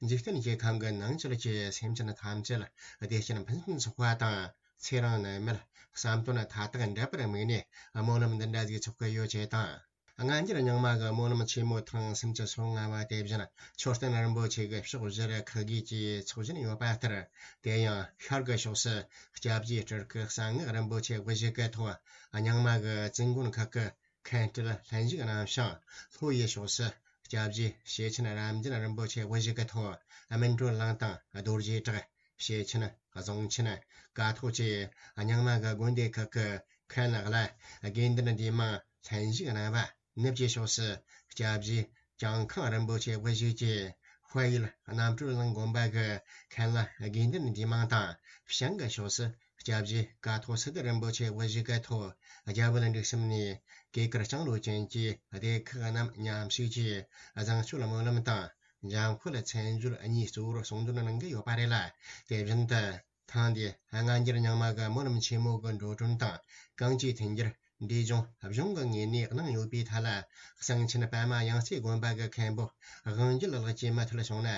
འཇིག་རྟེན་གྱི་ཁམས་ཀྱི་ནང་ཆོས་ཀྱི་སེམས་ཅན་ཐམས་ཅད་བདེ་སྐྱིད་ཕུན་སུམ་ཚོགས་པ་དང་། ཚེ་རིང་ནད་མེད་བསམ་དོན་མཐའ་དག་འགྲུབ་པར་དམིགས་ནས་སྨོན་ལམ་འདི་འདྲ་ཞིག་ཚོགས་ཀྱི་ཡོད་ཅེས་དང་། སྔ་འགྱུར་རྙིང་མ་གི་སྨོན་ལམ་ཆེན་མོ་ཐེངས་སུམ་ཅུ་སོ་ལྔ་བ་དེ་བཞིན་མཆོད་རྟེན་རིན་པོ་ཆེ་གི་ཕྱོགས་བཞིར་ཁག་བགོས་ཀྱིས་འཚོགས་བཞིན་ཡོད་པ་ལྟར། དེ་ཡང་ཤར་གྱི་ཕྱོགས་སུ་སྐྱབས་རྗེ་སྤྲུལ་སྐུ་གསང་སྔགས་རིན་པོ་ཆེ་དབུ་བཞུགས་ཀྱི་ཐོག་རྙིང་མ་གི་བཙུན་དགོན་ཁག་གི་མཁན་སྤྲུལ་ལྷན་ཞུགས་གནང་ཞིང་། ལྷོ་ཡི་ཕྱོགས་སུ་སྐྱབས་རྗེ་ཞེ་ཆེན་རབ་འབྱམས་རིན་པོ་ཆེ་དབུ་བཞུགས་ཀྱི་ཐོག་སྨིན་གྲོལ་གླིང་དང་རྡོ་རྗེ་བྲག། བྱེ་ཆེན། རྫོང་ཆེན། ཀ་ཐོག་བཅས་རྙིང་མ་གི་དགོན་སྡེ་ཁག་གི་མཁན་བླ་དགེ་འདུན་འདུས་མང་ལྷན་ཞུགས་གནང་བ། ནུབ་ཀྱི་ཕྱོགས་སུ་སྐྱབས་རྗེ་ཇང་ཁང་རིན་པོ་ཆེ་དབུ་བཞུགས་ཀྱི་དཔལ་ཡུལ་རྣམ་གྲོལ་གླིང་དགོན་པ་གི་མཁན་བླ་དགེ་འདུན་འདུས་མང་དང་། བྱང་གི་ཕྱོགས་སུ་སྐྱབས་རྗེ་ཀཿཐོག་སིདྡྷི་རིན་པོ་ཆེ་དབུ་བཞུགས་ཀྱི་ཐོག་རྒྱ་བོད་འབྲུག་གསུམ་ནས་གོས་དཀར་ལྕང་ལོ་ཅན་གྱི་སྡེ་ཁག་རྣམས་མཉམ་ཞུགས་ཀྱིས་བཟང་སྤྱོད་སྨོན་ལམ་དང་། འཇམ་དཔལ་མཚན་བརྗོད་གཉིས་གཙོ་བོར་གསུང་འདོན་གནང་གི་ཡོད་པ་རེད་ལ། དེ་བཞིན་དུ། ཐེངས་འདིའི་སྔ་འགྱུར་རྙིང་མ་གི་སྨོན་ལམ་ཆེན་མོ་གི་འགྲོ་གྲོན་དང་། གང་ཅིའི་མཐུན་འགྱུར་འབྲས་ལྗོངས་གཞུང་གི་ངོས་ནས་གནང་ཡོད་པའི་ཐད་ལ། གསང་ཆེན་པདྨ་ཡང་རྩེ་དགོན་པ་གི་མཁན་པོ་དབང་རྒྱལ་ལགས་ཀྱིས་མུ་མཐུད་གསུངས་ན།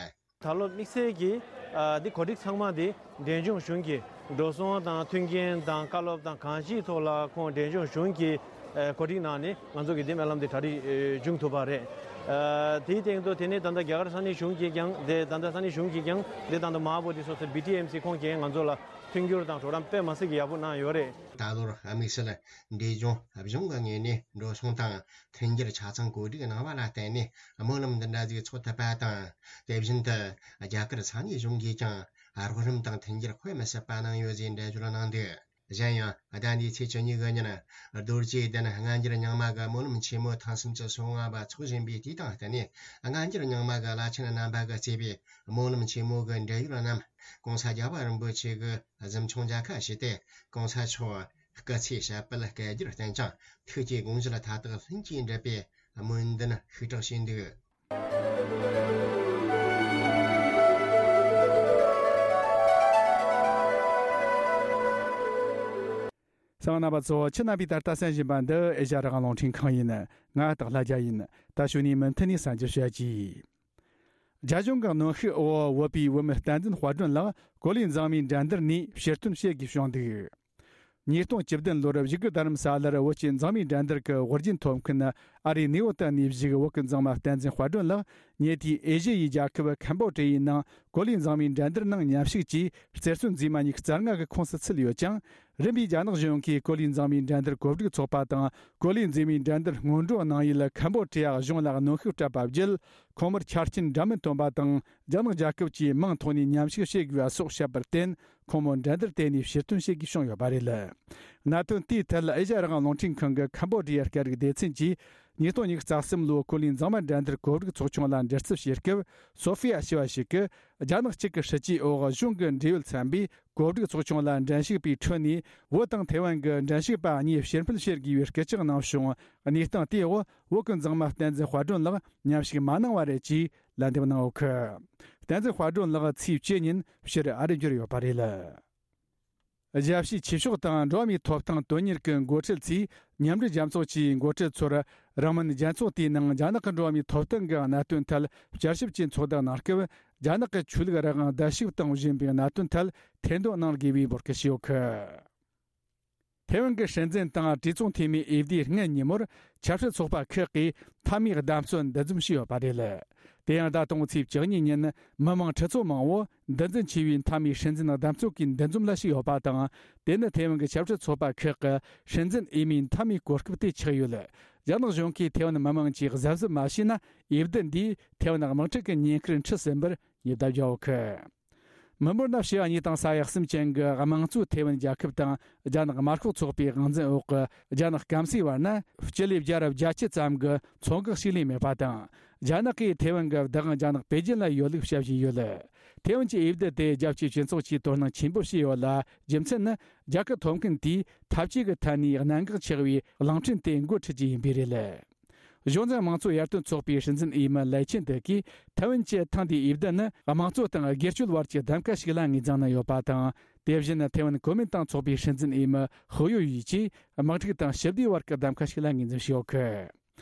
ད་ལོ་དམིགས་བསལ་གྱིས་ཨ་འདི་གོ་སྒྲིག་ཚང་མ་འདི་འབྲས་ལྗོངས་གཞུང་གི་འགྲོ་སོང་དང་མཐུན་རྐྱེན་དང་བཀའ་སློབ་དང་གང་ཅིའི་ཐོག་ལ་ཁོང་འབྲས་ལྗོངས་གཞུང་གིས་ཨ་གོ་སྒྲིག་གནང་ནས་ང་ཚོ་གི་འདི་སྨོན་ལམ་འདི་གྲ་སྒྲིག་ཨ་བྱུང་ཐུབ་པ་རེད། ཨ་དེའི་སྟེང་དུ་དེ་ནས་ད་ལྟ་རྒྱ་གར་ས་གནས་གཞུང་གིས་ཀྱང་དེ་ད་ལྟ་ས་གནས་གཞུང་གིས་ཀྱང་དེ་ད་ལྟ་མ་འོངས་པ་དེ་སོ་སོའི་བི་ཊི་ཨེམ་སི་ཁོང་གིས་ང་ཚོ་ལ་མཐུན་འགྱུར་དང་གྲོགས་རམ་དཔེ་མ་སྲིད་ཀྱི་ཡག་པོ་གནང་ཡོད་རེད། ད་ལོར་དམིགས་བསལ་འབྲས་ལྗོངས་གཞུང་གི་ངོས་ནས་འགྲོ་སོང་དང་མཐུན་འགྱུར་ཆ་ཚང་གོ་སྒྲིག་གནང་བ་ལ་བརྟེན་ནས་སྨོན་ལམ་འདི་འདྲ་ཞིག་ཚོགས་ཐུབ་པ་དང་། དེ་བཞིན་དུ་རྒྱ་གར་ས་གནས་གཞུང་གིས་ཀྱང་རོགས་རམ་དང་མཐུན་འགྱུར་དཔེ་མི་སྲིད་པ་གནང་ཡོད་ཅེས་འགྲེལ་བརྗོད་གནང་འདུག་གཞན་ཡང་ཟླ་འདིའི་ཚེས་བཅུ་གཉིས་ཀྱི་ཉིན། རྡོ་རྗེ་གདན་སྔ་འགྱུར་རྙིང་མ་གི་སྨོན་ལམ་ཆེན་མོ་ཐེངས་སུམ་ཅུ་སོ་ལྔ་པ་འཚོགས་བཞིན་པའི་དུས་དང་བསྟུན་ནས། སྔ་འགྱུར་རྙིང་མ་གི་བླ་ཆེན་རྣམ་པ་གིས་གཙོས་པའི་སྨོན་ལམ་ཆེན་མོ་གི་འབྲེལ་ཡོད་རྣམས་༸གོང་ས་༸རྒྱལ་བ་རིན་པོ་ཆེ་གི་གཟིམ་ཆུང་མཇལ་ཁ་ཞུས་ཏེ། གོང་ས་མཆོག་སྐུ་ཚེ་ཞབས་པད་བསྐལ་བརྒྱར་བརྟན་ཅིང་། ཐུགས་ཀྱི་དགོངས་གཞི་ལ་མཐའ་དག་ལྷུན་གྱིས་འགྲུབ་པའི་སྨོན་འདུན་ཤུགས་དྲག་བྱས་འདུག་གསན་པ་རྣམ་པ་ཚོ། ཁྱེད་རྣམ་པས་ད་ལྟ་གསན་བཞིན་པ་འདི་ཨེ་ཤ་ཡ་རང་དབང་རླུང་འཕྲིན་ཁང་ཡིན། ང་སྟག་ལྷ་རྒྱལ་ཡིན། ད་གཞུག་ནས་མུ་མཐུད་ནས་གསན་རྒྱུ་བྱ་གྱིས། རྒྱ་གཞུང་གི་གནོན་ཤུགས་འོག་བོད་པའི་བུད་མེད་བསྟན་འཛིན་དཔལ་སྒྲོན་ལགས་གོ་ལའི་འཛིན་མའི་འགྲན་བསྡུར་ནས་ཕྱིར་ཐོན་བྱེད་དགོས་བྱུང་འདུག་ཉིས་སྟོང་བཅུ་བདུན་ལོར་བཞུགས་སྒར་རྡ་རམ་ས་ལར་བོད་ཀྱི་འཛིན་མའི་འགྲན་བསྡུར་གྱི་དབུ་རྒྱན་ཐོབ་མཁན་ཨ་རིའི་ནིའུ་ཡོག་ནས་བཞུགས་བོད་ཀྱི་འཛིན་མ་བསྟན་འཛིན་དཔལ་སྒྲོན་ལགས་ཉེ་དུས་ཨེ་ཤི་ཡའི་རྒྱལ་ཁབ་ཁམ་བོ་ཌི་ཡའི་ནང་གོ་ལའི་འཛིན་མའི་འགྲན་བསྡུར་ནང་མཉམ་ཞུགས་ཀྱིས་རྩེར་སོན་འཛིན་མ་ཉི་ཤུ་རྩ་ལྔ་གི་ཁོངས་སུ་ཚུད་ཡོད་ཅིང་། རིམ་པས་རྒྱ་ནག་གཞུང་གིས་གོ་ལའི་འཛིན་མའི་འགྲན་བསྡུར་གོ་སྒྲིག་ཚོགས་པ་དང་། གོ་ལའི་འཛིན་མའི་འགྲན་བསྡུར་སྔོན་འགྲོ་གནང་ཡུལ་ཁམ་བོ་ཌི་ཡ་གཞུང་ལ་གནོན་ཤུགས་སྤྲད་པ་བརྒྱུད། ཁོང་མོར་ཆ་རྐྱེན་འདྲ་མིན་བཏོན་པ་དང་། རྒྱ་ནག་རྒྱལ་ཁབ་ཀྱི་དམངས་ཐོག་ནས་མཉམ་ཞུགས་བྱེད་དགོས་པ་སོགས་བཤད་པར་བརྟེན། ཁོང་མོ་འགྲན་བསྡུར་དེ་ནས་ཕྱིར་ཐོན་བྱེད་དགོས་བྱུང་ཡོད་པ་རེད། གནད་དོན་དེའི་ཐད་ཨེ་ཤ་ཡ་རང་དབང་རླུང་འཕྲིན་ཁང་གི་ཁམ་བོ་ཌི་ཡའི་སྐད་རིགས་སྡེ་ཚན་གྱིས་ཉིས་སྟོང་ཉི་ཤུ་རྩ་གསུམ་ལོའི་གོ་ལའི་འཛིན་མ་འགྲན་བསྡུར་གོ་སྒྲིག་ཚོགས་ཆུང་ལ་འདྲི་རྩད་བྱེད་སྐབས། སོ་ཧྥི་ཡ་ཞེས་པ་ཞིག་གིས། རྒྱ་ནག་གཅིག་གི་སྲིད་ཇུས་འོག་གཞུང་གི་འབྲེལ་ཡོད་ཚན་པས་གོ་སྒྲིག་ཚོགས་ཆུང་ལ་འགྲན་ཞུགས་པའི་ཁྲོད་ནས། བོད་དང་ཐེ་ཝན་གྱི་འགྲན་ཞུགས་པ་གཉིས་ཕྱིར་འཕུད་བྱེད་དགོས་པའི་སྐུལ་ལྕག་གནང་བྱུང་། གནས་སྟངས་དེའི་འོག་བོད་ཀྱི་འཛིན་མ་བསྟན་འཛིན་དཔལ་སྒྲོན་ལགས་མཉམ་ཞུགས་མ་གནང་བ་རེད་ཅེས་ལན་འདེབས་གནང་ཡོད་ཀི། བསྟན་འཛིན་དཔལ་སྒྲོན་ལགས་ཚེས་བཅུ་ཉིན་ཕྱིར་ཨ་རི་འབྱོར་ཡོད་པ་རེད། རྒྱལ་སྤྱིའི་ཆོས་ཕྱོགས་དང་འགྲོ་བ་མིའི་ཐོབ་ཐང་དོན་གཉེར་གྱི་འགོ་ཁྲིད་ཚོས་མཉམ་འབྲེལ་རྒྱལ་ཚོགས་ཀྱི་འགོ་ཁྲིད་ཚོར་རིང་མིན་རྒྱལ་ཚོགས་དེའི་ནང་རྒྱ་ནག་གི་འགྲོ་བ་མིའི་ཐོབ་ཐང་གི་གནད་དོན་ཐད་བསྐྱར་ཞིབ་ཀྱི་ཚོགས་འདུ་གནང་སྐབས། རྒྱ་ནག་གི་ཆོས་ལུགས་རང་དབང་བརྡལ་བཤིག་གཏོང་བཞིན་པའི་གནད་དོན་ཐད་ཐེར་འདོན་གནང་དགོས་པའི་འབོད་སྐུལ་ཞུས་ཡོད་ཀི། ཐེ་ཝན་གྱི་སྲིད་འཛིན་དང་གྲོས་ཚོགས་འཐུས་མིའི་འོས་བསྡུའི་སྔ་ཉིན་མོར་ཆབ་སྲིད་ཚོགས་པ་ཁག་གིས་མཐའ་མའི་བདམས་ཐོན་འདུ་འཛོམས་བྱས་ཡོད་པ་རེད། དེ་ཡང་ཟླ་དང་པོའི་ཚེས་བཅུ་གཉིས་ཉིན་མི་མང་ཁྲི་ཚོ་མང་བོ་འདུ་འཛིན་ཆེ་བའི་མཐའ་མའི་སྲིད་འཛིན་བདམས་ཐོན་གྱི་འདུ་འཛོམས་ལ་ཞུགས་ཡོད་པ་དང་། དེ་ནི་ཐེ་ཝན་གྱི་ཆབ་སྲིད་ཚོགས་པ་ཁག་གི་སྲིད་འཛིན་འོས་མིའི་མཐའ་མའི་གོ་སྐབས་དེ་ཆགས་ཡོད། རྒྱ་ནག་གཞུང་གིས་ཐེ་ཝན་མི་མང་གིས་གཟབ་གཟབ་མ་བྱས་ན། འོས་བསྡུ་འདིས་ཐེ་ཝན་དམག་འཁྲུག་གི་ཉེན་ཁར་འཁྲིད་ཟིན་པར་ཉེན་བརྡ་བརྒྱབ་ཡོད་ཀི། མི་འབོར་ན་ཕྱེད་གཉིས་དང་ས་ཡ་གསུམ་ཅན་གྱི་དམངས་གཙོའི་ཐེ་ཝན་རྒྱལ་ཁབ་དང་རྒྱ་ནག་དམར་ཤོག་ཚོགས་པའི་དབང་འཛིན་འོག་གི་རྒྱ་ནག་སྐམ་སའི་བར་ན་སྤྱི་ལེ་བརྒྱ་ར་བརྒྱད་ཅུ་ཙམ་གྱི་མཚོ་འགག་ཞིག་ལས་མེད་པ་དང་། རྒྱ་ནག་གིས་ཐེ་ཝན་གྱི་བདག་དབང་རྒྱ་ནག་པེ་ཅིན་ལ་ཡོད་ལུགས་བཤད་བཞིན་ཡོད། ཐེ་ཝན་གྱི་འོས་བསྡུ་དེ་རྒྱལ་སྤྱིའི་སྤྱི་ཚོགས་ཀྱིས་དོ་སྣང་ཆེན་པོ་བྱས་ཡོད་ལ། རྒྱུ་མཚན་ནི་རྒྱལ་ཁབ་ཐོབ་མཁན་དེས་འཐབ་ཇུས་ཀྱི་ཐད་ནས་གནད་འགག་ཆེ་བའི་གླིང་ཕྲན་དེ་འགོ་ཁྲིད་ཀྱི་ཡིན་པས་རེད། གཞུང་འཛིན་དམངས་གཙོ་ཡར་ཐོན་ཚོགས་པའི་སྲིད་འཛིན་འོས་མི་ལའེ་ཆིན་ཏེ་གིས་ཐེ་ཝན་གྱི་ཐེངས་འདིའི་འོས་བསྡུ་ནི་དམངས་གཙོ་དང་སྒེར་གཅོད་བར་གྱི་གདམ་ག་ཞིག་ལ་ངོས་འཛིན་གནང་ཡོད་པ་དང་། དེ་བཞིན་ཐེ་ཝན་གོ་མིན་ཏང་ཚོགས་པའི་སྲིད་འཛིན་འོས་མི་ཧུའུ་ཡུ་ཡི་ཀྱིས་དམག་འཁྲུག་དང་ཞི་བདེའི་བར་གྱི་གདམ་ག་ཞིག་ལ་ངོས་འཛིན་བྱས་ཡོད་ཀི།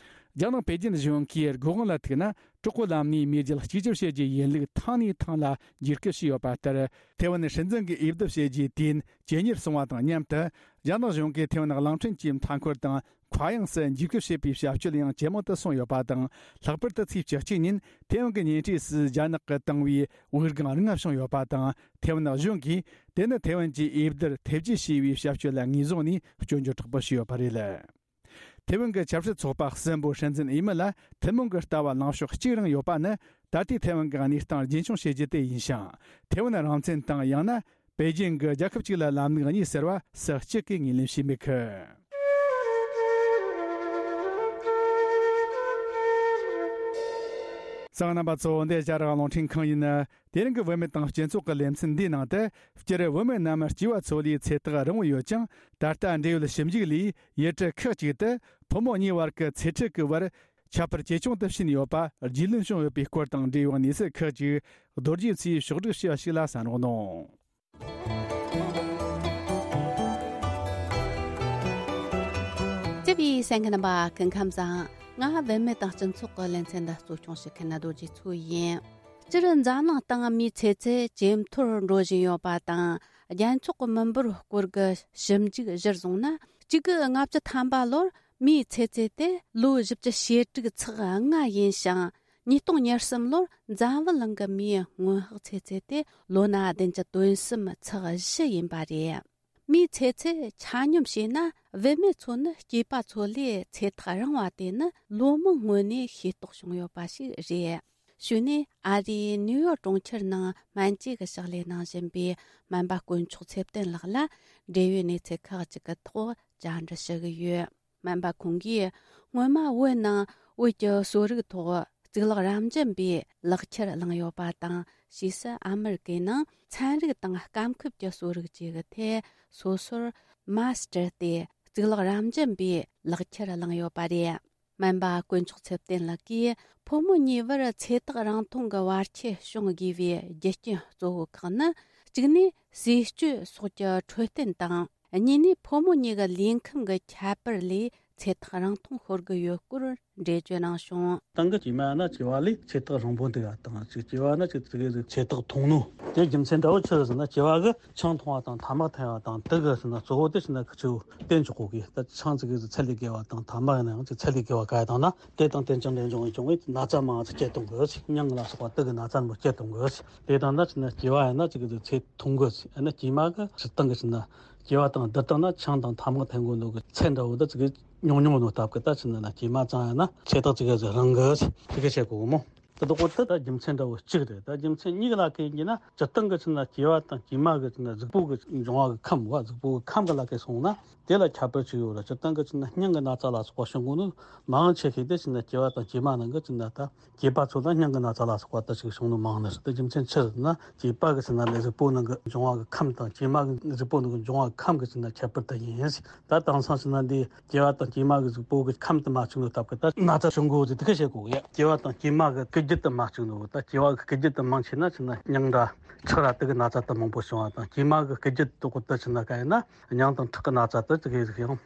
རྒྱ་ནག་པེ་ཅིན་གཞུང་གིས་སྒོ་དབང་ལ་ཐུག་ན། གྲོགས་པོའི་ལམ་ནས་མེས་རྒྱལ་གཅིག་གྱུར་བྱེད་རྒྱུའི་ཡིན་ལུགས་ཐེངས་ནས་ཐེངས་ལ་འཇིགས་སྐུལ་བྱས་ཡོད་པ་ལྟར། ཐེ་ཝན་སྲིད་འཛིན་གྱི་འོས་བསྡུ་བྱས་རྗེས་དུས་ཡུན་ཇེ་ཉེར་སོང་བ་དང་མཉམ་དུ། རྒྱ་ནག་གཞུང་གིས་ཐེ་ཝན་གླིང་ཕྲན་གྱི་མཐའ་འཁོར་དང་། མཁའ་དབྱིངས་སུ་འཇིགས་སྐུལ་བྱེད་པའི་བྱ་སྤྱོད་ཡང་ཇེ་མང་དུ་སོང་ཡོད་པ་དང་། ལྷག་པར་དུ་ཚེས་བཅུ་གཅིག་ཉིན་ཐེ་ཝན་གྱི་ཉེ་འཁྲིས་སུ་རྒྱ་ནག་གིས་བཏང་བའི་དབུགས་ལྒང་རིང་ང་བྱུང་ཡོད་པ་དང་། ཐེ་ཝན་གཞུང་གིས་དེ་ནི་ཐེ་ཝན་གྱི་འོས་བསྡུར་ཐེ་བྱུས་བྱས་པའི་བྱ་སྤྱོད་ལ་ངོས་བཟུང་ནས་སྐྱོན་བརྗོད་དྲག་པོ་བྱས་ཡོད་པ་རེད། ཐེ་ཝན་གྱི་ཆབ་སྲིད་ཚོགས་པ་གསུམ་པོའི་སྲིད་འཛིན་འོས་མི་ལ་ཐུན་མོང་གི་ལྟ་བ་ལངས་ཕྱོགས་གཅིག་རང་ཡོད་པ་ནི། ད་ལྟའི་ཐེ་ཝན་གྱི་གནས་སྟངས་རྒྱུན་འཁྱོངས་བྱེད་རྒྱུ་དེ་ཡིན་ཞིང་། ཐེ་ཝན་རང་བཙན་དང་ཡང་ན་པེ་ཅིན་གྱི་རྒྱལ་ཁབ་གཅིག་ལ་ལམ་ལུགས་གཉིས་ཟེར་བ་སུ་གཅིག་གིས་ངོས་ལེན་བྱས་མེད་ཀི། གསན་མཁན་རྣམ་པ་ཚོ། འདི་ཨེ་ཤེ་ཡ་རང་དབང་རླུང་འཕྲིན་ཁང་ཡིན། དེ་རིང་གི་བུད་མེད་དང་སྤྱི་ཚོགས་ཀྱི་ལེ་ཚན་འདིའི་ནང་དུ། སྤྱིར་བུད་མེད་རྣམས་སྐྱེས་པ་ཚོ་ལས་ཚེ་ཐག་རིང་བོ་ཡོད་ཀྱང་། ད་ལྟ་འབྲེལ་ཡོད་ཞིབ་འཇུག་ལས་ཡུལ་གྲུ་ཁག་ཅིག་ཏུ་ཕོ་མོ་གཉིས་བར་གྱི་ཚེ་ཁྲིད་ཀྱི་བར་ཁྱད་པར་ཇེ་ཆུང་དུ་ཕྱིན་ཡོད་པ་རྒྱུས་ལོན་བྱུང་ཡོད་པའི་སྐོར་དང་འབྲེལ་ཡོད་གནས་ཚུལ་ཁག་ཅིག་རྡོ་རྗེ་མཚོས་ཕྱོགས་བསྒྲིགས་བྱས་པ་ཞིག་ལ་གསན་རོགས་གནང་། བཅུ་བའི་གསན་མཁན་རྣམ་པ་སྐུ་ཁམས་བཟང་། ང་བུད་མེད་དང་སྤྱི་ཚོགས་ཀྱི་ལེ་ཚན་འདི་གཙོ་སྐྱོང་བྱེད་མཁན་རྡོ་རྗེ་མཚོ་ཡིན། སྤྱིར་འཛམ་གླིང་སྟེང་མིའི་ཚེ་ཚད་ཇེ་མཐོར་འགྲོ་བཞིན་ཡོད་པ་དང་། རྒྱལ་ཚོགས་ཀྱི་མི་འབོར་སྐོར་གྱི་ཞིབ་འཇུག་གཞིར་བཟུང་ན། གཅིག་དགུ་ལྔ་བཅུ་ཐམ་པ་ལོར་མིའི་ཚེ་ཚད་དེ་ལོ་བཞི་བཅུ་ཞེ་དྲུག་ཚེག་ལྔ་ཡིན་ཞིང་། ཉིས་སྟོང་ཉེར་གསུམ་ལོར་འཛམ་བུ་གླིང་གི་མིའི་སྔོན་དཔག་ཚེ་ཚད་དེ་ལོ་ན་བདུན་བཅུ་དོན་གསུམ་ཚེག་བཞི་ཡིན་པ་རེད། མིའི་ཚེ་ཚད་ཆ་སྙོམས་བྱས་ན། བུད་མེད་ཚོ་ནི་སྐྱེས་པ་ཚོ་ལས་ཚེ་ཐག་རིང་བ་དེ་ནི་ལོ་མང་སྔོན་ནས་ཤེས་རྟོགས་བྱུང་ཡོད་པ་ཞིག་རེད། གཞུག་ནས་ཨ་རིའི་ནིའུ་ཡོག་གྲོང་ཁྱེར་ནང་སྨན་བཅོས་ཀྱི་ཕྱག་ལས་གནང་བཞིན་པའི་སྨན་པ་དཀོན་མཆོག་ཚེ་བརྟན་ལགས་ལ་འབྲེལ་ཡོད་གནས་ཚུལ་ཁག་ཅིག་གི་ཐོག་བཅར་འདྲི་ཞུ་གི་ཡོད། སྨན་པ་ཁོང་གིས་སྔོན་མ་བོད་ནང་བོད་ཀྱི་གསོ་རིག་ཐོག་གཙུག་ལག་རབ་འབྱམས་པའི་ལག་ཁྱེར་བླངས་ཡོད་པ་དང་། ཕྱིས་སུ་ཨ་མི་རི་ཀའི་ནང་ཚན་རིག་དང་སྐམ་ཁུབ་ཀྱི་གསོ་རིག་བཅས་ཀྱི་ཐད་སོ་སོར་མཱ་སི་ཊར་ཏེ་གཙུག་ལག་རབ་འབྱམས་པའི་ལག་ཁྱེར་བླངས་ཡོད་པ་རེད། སྨན་པ་དཀོན་མཆོག་ཚེ་བརྟན་ལགས་ཀྱིས་ཕོ་མོ་གཉིས་བར་ཚེ་ཐག་རིང་ཐུང་གི་བར་ཁྱད་བྱུང་དགོས་པའི་རྒྱུ་རྐྱེན་གཙོ་བོ་ཁག་ནི། གཅིག་ནས་ཟས་སྤྱོད་སོགས་ཀྱི་འཕྲོད་བསྟེན་དང་། གཉིས་ནས་ཕོ་མོ་གཉིས་ཀྱི་ལུས་ཁམས་ཀྱི་ཁྱད་པར་ལས་ཚེ་ཐག་རིང་ཐུང་ཤོར་གྱི་ཡོད་སྐོར་འགྲེལ་བརྗོད་གནང་བྱུང་། སྟེང་གི་སྐྱེས་མ་ན་སྐྱེས་པ་ལས་ཚེ་ཐག་རིང་པོ་འདུག་ག་དང་། ཅིག་སྐྱེས་པ་ན་ཅིག་ཅིག་ཚེ་ཐག་ཐུང་ནོ། དེ་རྒྱུ་མཚན་འདྲ་བོ་ཆི་རེད་ཟེར་ན། སྐྱེས་པ་གི་ཆང་འཐུང་བ་དང་ཐ་མག་འཐེན་པ་དང་། དེ་གི་ཟེར་ན་གཙོ་བོ་དེ་ཟེར་ན་ཁི་ཆོ་བསྟེན་ཆོག་གོ་གི། ད་ཆང་ཅིག་གི་ཚད་ལས་བརྒལ་བ་དང་ཐ་མག་ཡིན་ན་ཡང་ཅིག་ཚད་ལས་བརྒལ་བ་ག་ཡ་དང་ན། དེ་དང་དེ་ཅང་འབྲེལ་འབྱུང་བའི་བྱུང་བའི་ན་ཚ་མང་ཙིག་སྐྱེ་གཏོང་གི་ཟེར། སྙིང་ལ་སོགས་པ་དེ་གི་ན་ཚ་མང་སྐྱེ་གཏོང་གི་ཟེར། དེ་དང་ན་ཟེར་ན་སྐྱེས་པ་ཡིན་ན་ཅིག་གི་ཚེ་ཐུང་གི་ཟེར། ཡང་ན་སྐྱེས་མ་གི་སྤྱིར་བཏང་གི་ཟེར་ན། སྐྱེས་པ་དང་བསྡུར་བཏང་ན་ཆང་དང་ཐ་མག་འཐེན་དགོས་ནོ་གི་ཚད་འདྲ་བོ་འདི་ཅིག་གི་ཉུང་ཉུང་ནོ་སྟབས་ཀྱིས། ད་ཟེར་ན་ན་སྐྱེས་མ་ཙང་ཡང་ན་ཚེ་ཐག་ཅིག་གི་ཟིག་རིང་གི་ཟེར། དེ་གི་བཤད་གོ་གི་མོ། དེ་དག་གོ་དེ་ད་རྒྱུ་མཚན་འདྲ་བོ་གཅིག་རེད། ད་རྒྱུ་མཚན་གཉིས་ཀ་ལ་གན་གྱི་ན། སྤྱིར་བཏང་གི་ཟེར་ན་སྐྱེས་པ་དང་སྐྱེས་མ་གི་ཟེར་ན་གཟུགས་པོ་གི་འབྱུང་བ་གི་ཁམས་བ། གཟུགས་པོ་གི་ཁམས་གི་ལ་གན་སོང་ན་དེ་ལ་ཁྱད་པར་ཅིག་ཡོད་རེད། སྤྱིར་བཏང་གི་ཟེར་ན་སྙིང་གི་ན་ཚ་ལ་སོགས་པ་བྱུང་གོ་ནོ་མང་ཆེ་ཤོས་དེ་ཟེར་ན་སྐྱེས་པ་དང་སྐྱེས་མ་ནང་གི་ཟེར་ན། ད་སྐྱེས་པ་ཚོ་ལ་སྙིང་གི་ན་ཚ་ལ་སོགས་པ་ད་ཅིག་བྱུང་ནོ་མང་ནི་རེད། དེ་རྒྱུ་མཚན་ཆི་རེད་ཟེར་ན། སྐྱེས་པ་གི་ཟེར་ན་ལས་གཟུགས་པོ་ནང་གི་འབྱུང་བ་གི་ཁམས་དང་། སྐྱེས་མ་གི་གཟུགས་པོ་ནང་གི་འབྱུང་བ་གི་ཁམས་གི་ཟེར་ན་ཁྱད་པར་དེ་ཡིན་ཟེར། ད་དེང་སང་ཟེར་ན་འདི་སྐྱེས་པ་དང་སྐྱེས་མ་གི་གཟུགས་པོ་གི་ཁམས་དེ་མ་གཅིག་ནོ་སྟབས་ཀྱིས་ད་ན་ཚ་བྱུང་གོ་ཟེར་དེ་གི་བཤད་གོ་གི་ཡ། སྐྱེས་པ་དང་སྐྱེས་མ་གི་སྐུལ་རྒྱུ་དེ་མ་གཅིག་ནོ། ད་སྐྱེས་པ་གི་སྐུལ་རྒྱུ་དེ་མང་ཆེ་ན་ཟེར་ན་སྙིང་འདྲ་ཁྲག་ར་དེ་གི་ན་ཚ་དེ་མང་པོ་བྱུང་བ་དང་། སྐྱེས་མ་གི་སྐུལ་རྒྱུ་དེ་དག་གོ་དེ་ཟེར་ན་ག་ཡིན་ན། སྙིང་དང་ཁྲག་གི་ན་ཚ་དེ་དེ་གི་ཟིག་ཡང་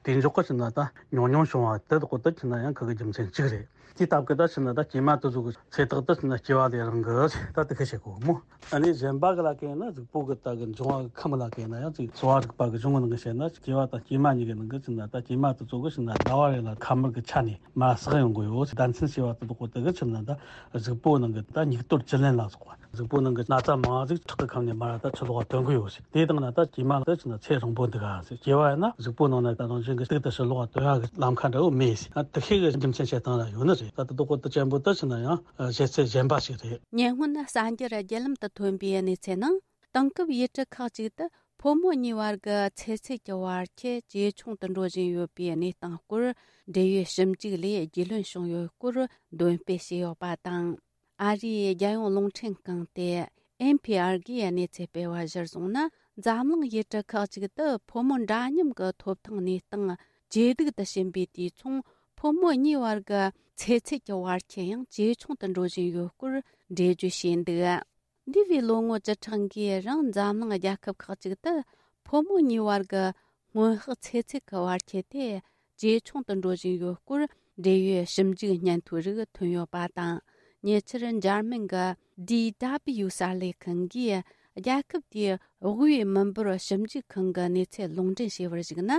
དེ་འཇོག་གི་ཟེར་ན་ད་ཉུང་ཉུང་བྱུང་བ་དེ་དག་གོ་དེ་ཟེར་ན་ཡང་ཁ་གི་རྒྱུ་མཚན་གཅིག་རེད། དེ་སྟབས་ཀྱིས་ད་ཟེར་ན་ད་སྐྱེས་མ་དེ་ཚོ་གི་ཚེ་ཐག་དེ་ཟེར་ན་སྐྱེས་པ་ལས་རིང་གི་ཟེར། ད་དེ་གི་བཤད་གོ་མོ། ཨ་ནི་གཞན་པ་གི་ལ་གན་ན་གཟུགས་པོ་གི་ད་གི་འབྱུང་བ་གི་ཁམས་ལ་གན་ན་ཡང་ཅིག་གསོ་བ་རིག་པ་གི་གཞུང་གི་ནང་གི་བཤད་ན། སྐྱེས་པ་དང་སྐྱེས་མ་གཉིས་ཀྱི་ནང་གི་ཟེར་ན། ད་སྐྱེས་མ་དེ་ཚོ་གི་ཟེར་ན་ཟླ་བ་རེ་ལ་ཁ་དམར་གི་ཆ་ནས་མར་སག་ཡོང་གི་ཡོད་ཟེར། ཟླ་མཚན་ཞེས་པ་དེ་དག་གོ་དེ་གི་ཟེར་ན་ད་གཟུགས་པོ་ནང་གི་ད་སྙིགས་དོར་བཅུད་ལེན་ལ་སོགས་པ། གཟུགས་པོ་ནང་གི་ན་ཚ་མང་ཟིག་ཁྲག་གི་ཁམས་ནས་མར་ད་ཕྱི་ལོགས་ལ་ཐོན་གི་ཡོད་ཟེར། དེ་དང་ན་ད་སྐྱེས་མ་ལ་ད་ཟེར་ན་ཚེ་རིང་པོ་འདུག་ག་ཟེར། སྐྱེས་པ་ཡིན་ན་གཟུགས་པོ་ནང་ན་ད་རང་བཞིན་གྱི་གཏུག་ཏུ་ཕྱི་ལོགས་ལ་ཐོན་ཡག་གི་ལམ་ཁ་འདྲ་བོ་མེད་ཟེར། ཨ་དེ་ཤེས་གི་རྒྱུ་མཚན་བཤད་སྟངས་ལ་ཡོད་ནི་རེད། ད་དེ་དག་གོ་དེ་ཅན་པོ་ད་ཟེར་ན་ཡང་བཤད་ཚུལ་གཞན་པ་ཞིག་རེད། ཉེ་སྔོན་གསར་འགྱུར་བརྒྱུད་ལམ་དུ་ཐོན་པའི་གནས་ཚུལ་ནང་། དེང་སྐབས་ཡུལ་གྲུ་ཁག་ཅིག་ཏུ་ཕོ་མོ་གཉིས་བར་གྱི་ཚེ་ཚད་ཀྱི་བར་ཁྱད་ཇེ་ཆུང་དུ་འགྲོ་བཞིན་ཡོད་པའི་གནས་སྟངས་སྐོར་འབྲེལ་ཡོད་ཞིབ་འཇུག་ལས་རྒྱུས་ལོན་བྱུང་ཡོད་སྐོར་འདོན་སྤེལ་བྱས་ཡོད་པ་དང་། ཨ་རིའི་རྒྱལ་ཡོངས་རླུང་འཕྲིན་ཁང་སྟེ་ཨེན་ཕི་ཨར་གིས་གནས་ཚུལ་སྤེལ་བ་གཞིར་བཟུང་ན། འཛམ་གླིང་ཡུལ་གྲུ་ཁག་ཅིག་ཏུ་ཕོ་མོ་འདྲ་མཉམ་གྱི་ཐོབ་ཐང་གནས་སྟངས་ཇེ་སྡུག་ཏུ་ཕྱིན་པའི་དུས་མཚུངས། ཕོ་མོ་གཉིས་བར་གྱི་ཚེ་ཚད་ཀྱི་བར་ཁྱད་ཡང་ཇེ་ཆུང་དུ་འགྲོ་བཞིན་ཡོད་སྐོར་འགྲེལ་བརྗོད་བྱས་འདུག་འདས་པའི་ལོ་ངོ་བཅུ་ཕྲག་འགའི་རིང་འཛམ་གླིང་རྒྱལ་ཁབ་ཁག་ཅིག་ཏུ་ཕོ་མོ་གཉིས་བར་གྱི་སྔོན་དཔག་ཚེ་ཚད་ཀྱི་བར་ཁྱད་དེ་ཇེ་ཆུང་དུ་འགྲོ་བཞིན་ཡོད་སྐོར་འབྲེལ་ཡོད་ཞིབ་འཇུག་སྙན་ཐོའི་རིགས་ཐོན་ཡོད་པ་དང་། ཉེ་ཆར་འཇར་མན་གྱི་ཌི་ཌབ་ལིའུ་གསར་ལས་ཁང་གིས་རྒྱལ་ཁབ་དེའི་དབུས་མི་འབོར་ཞིབ་འཇུག་ཁང་གི་གནས་ཚུལ་ལུང་འདྲེན་བྱས་པར་གཞིགས་ན།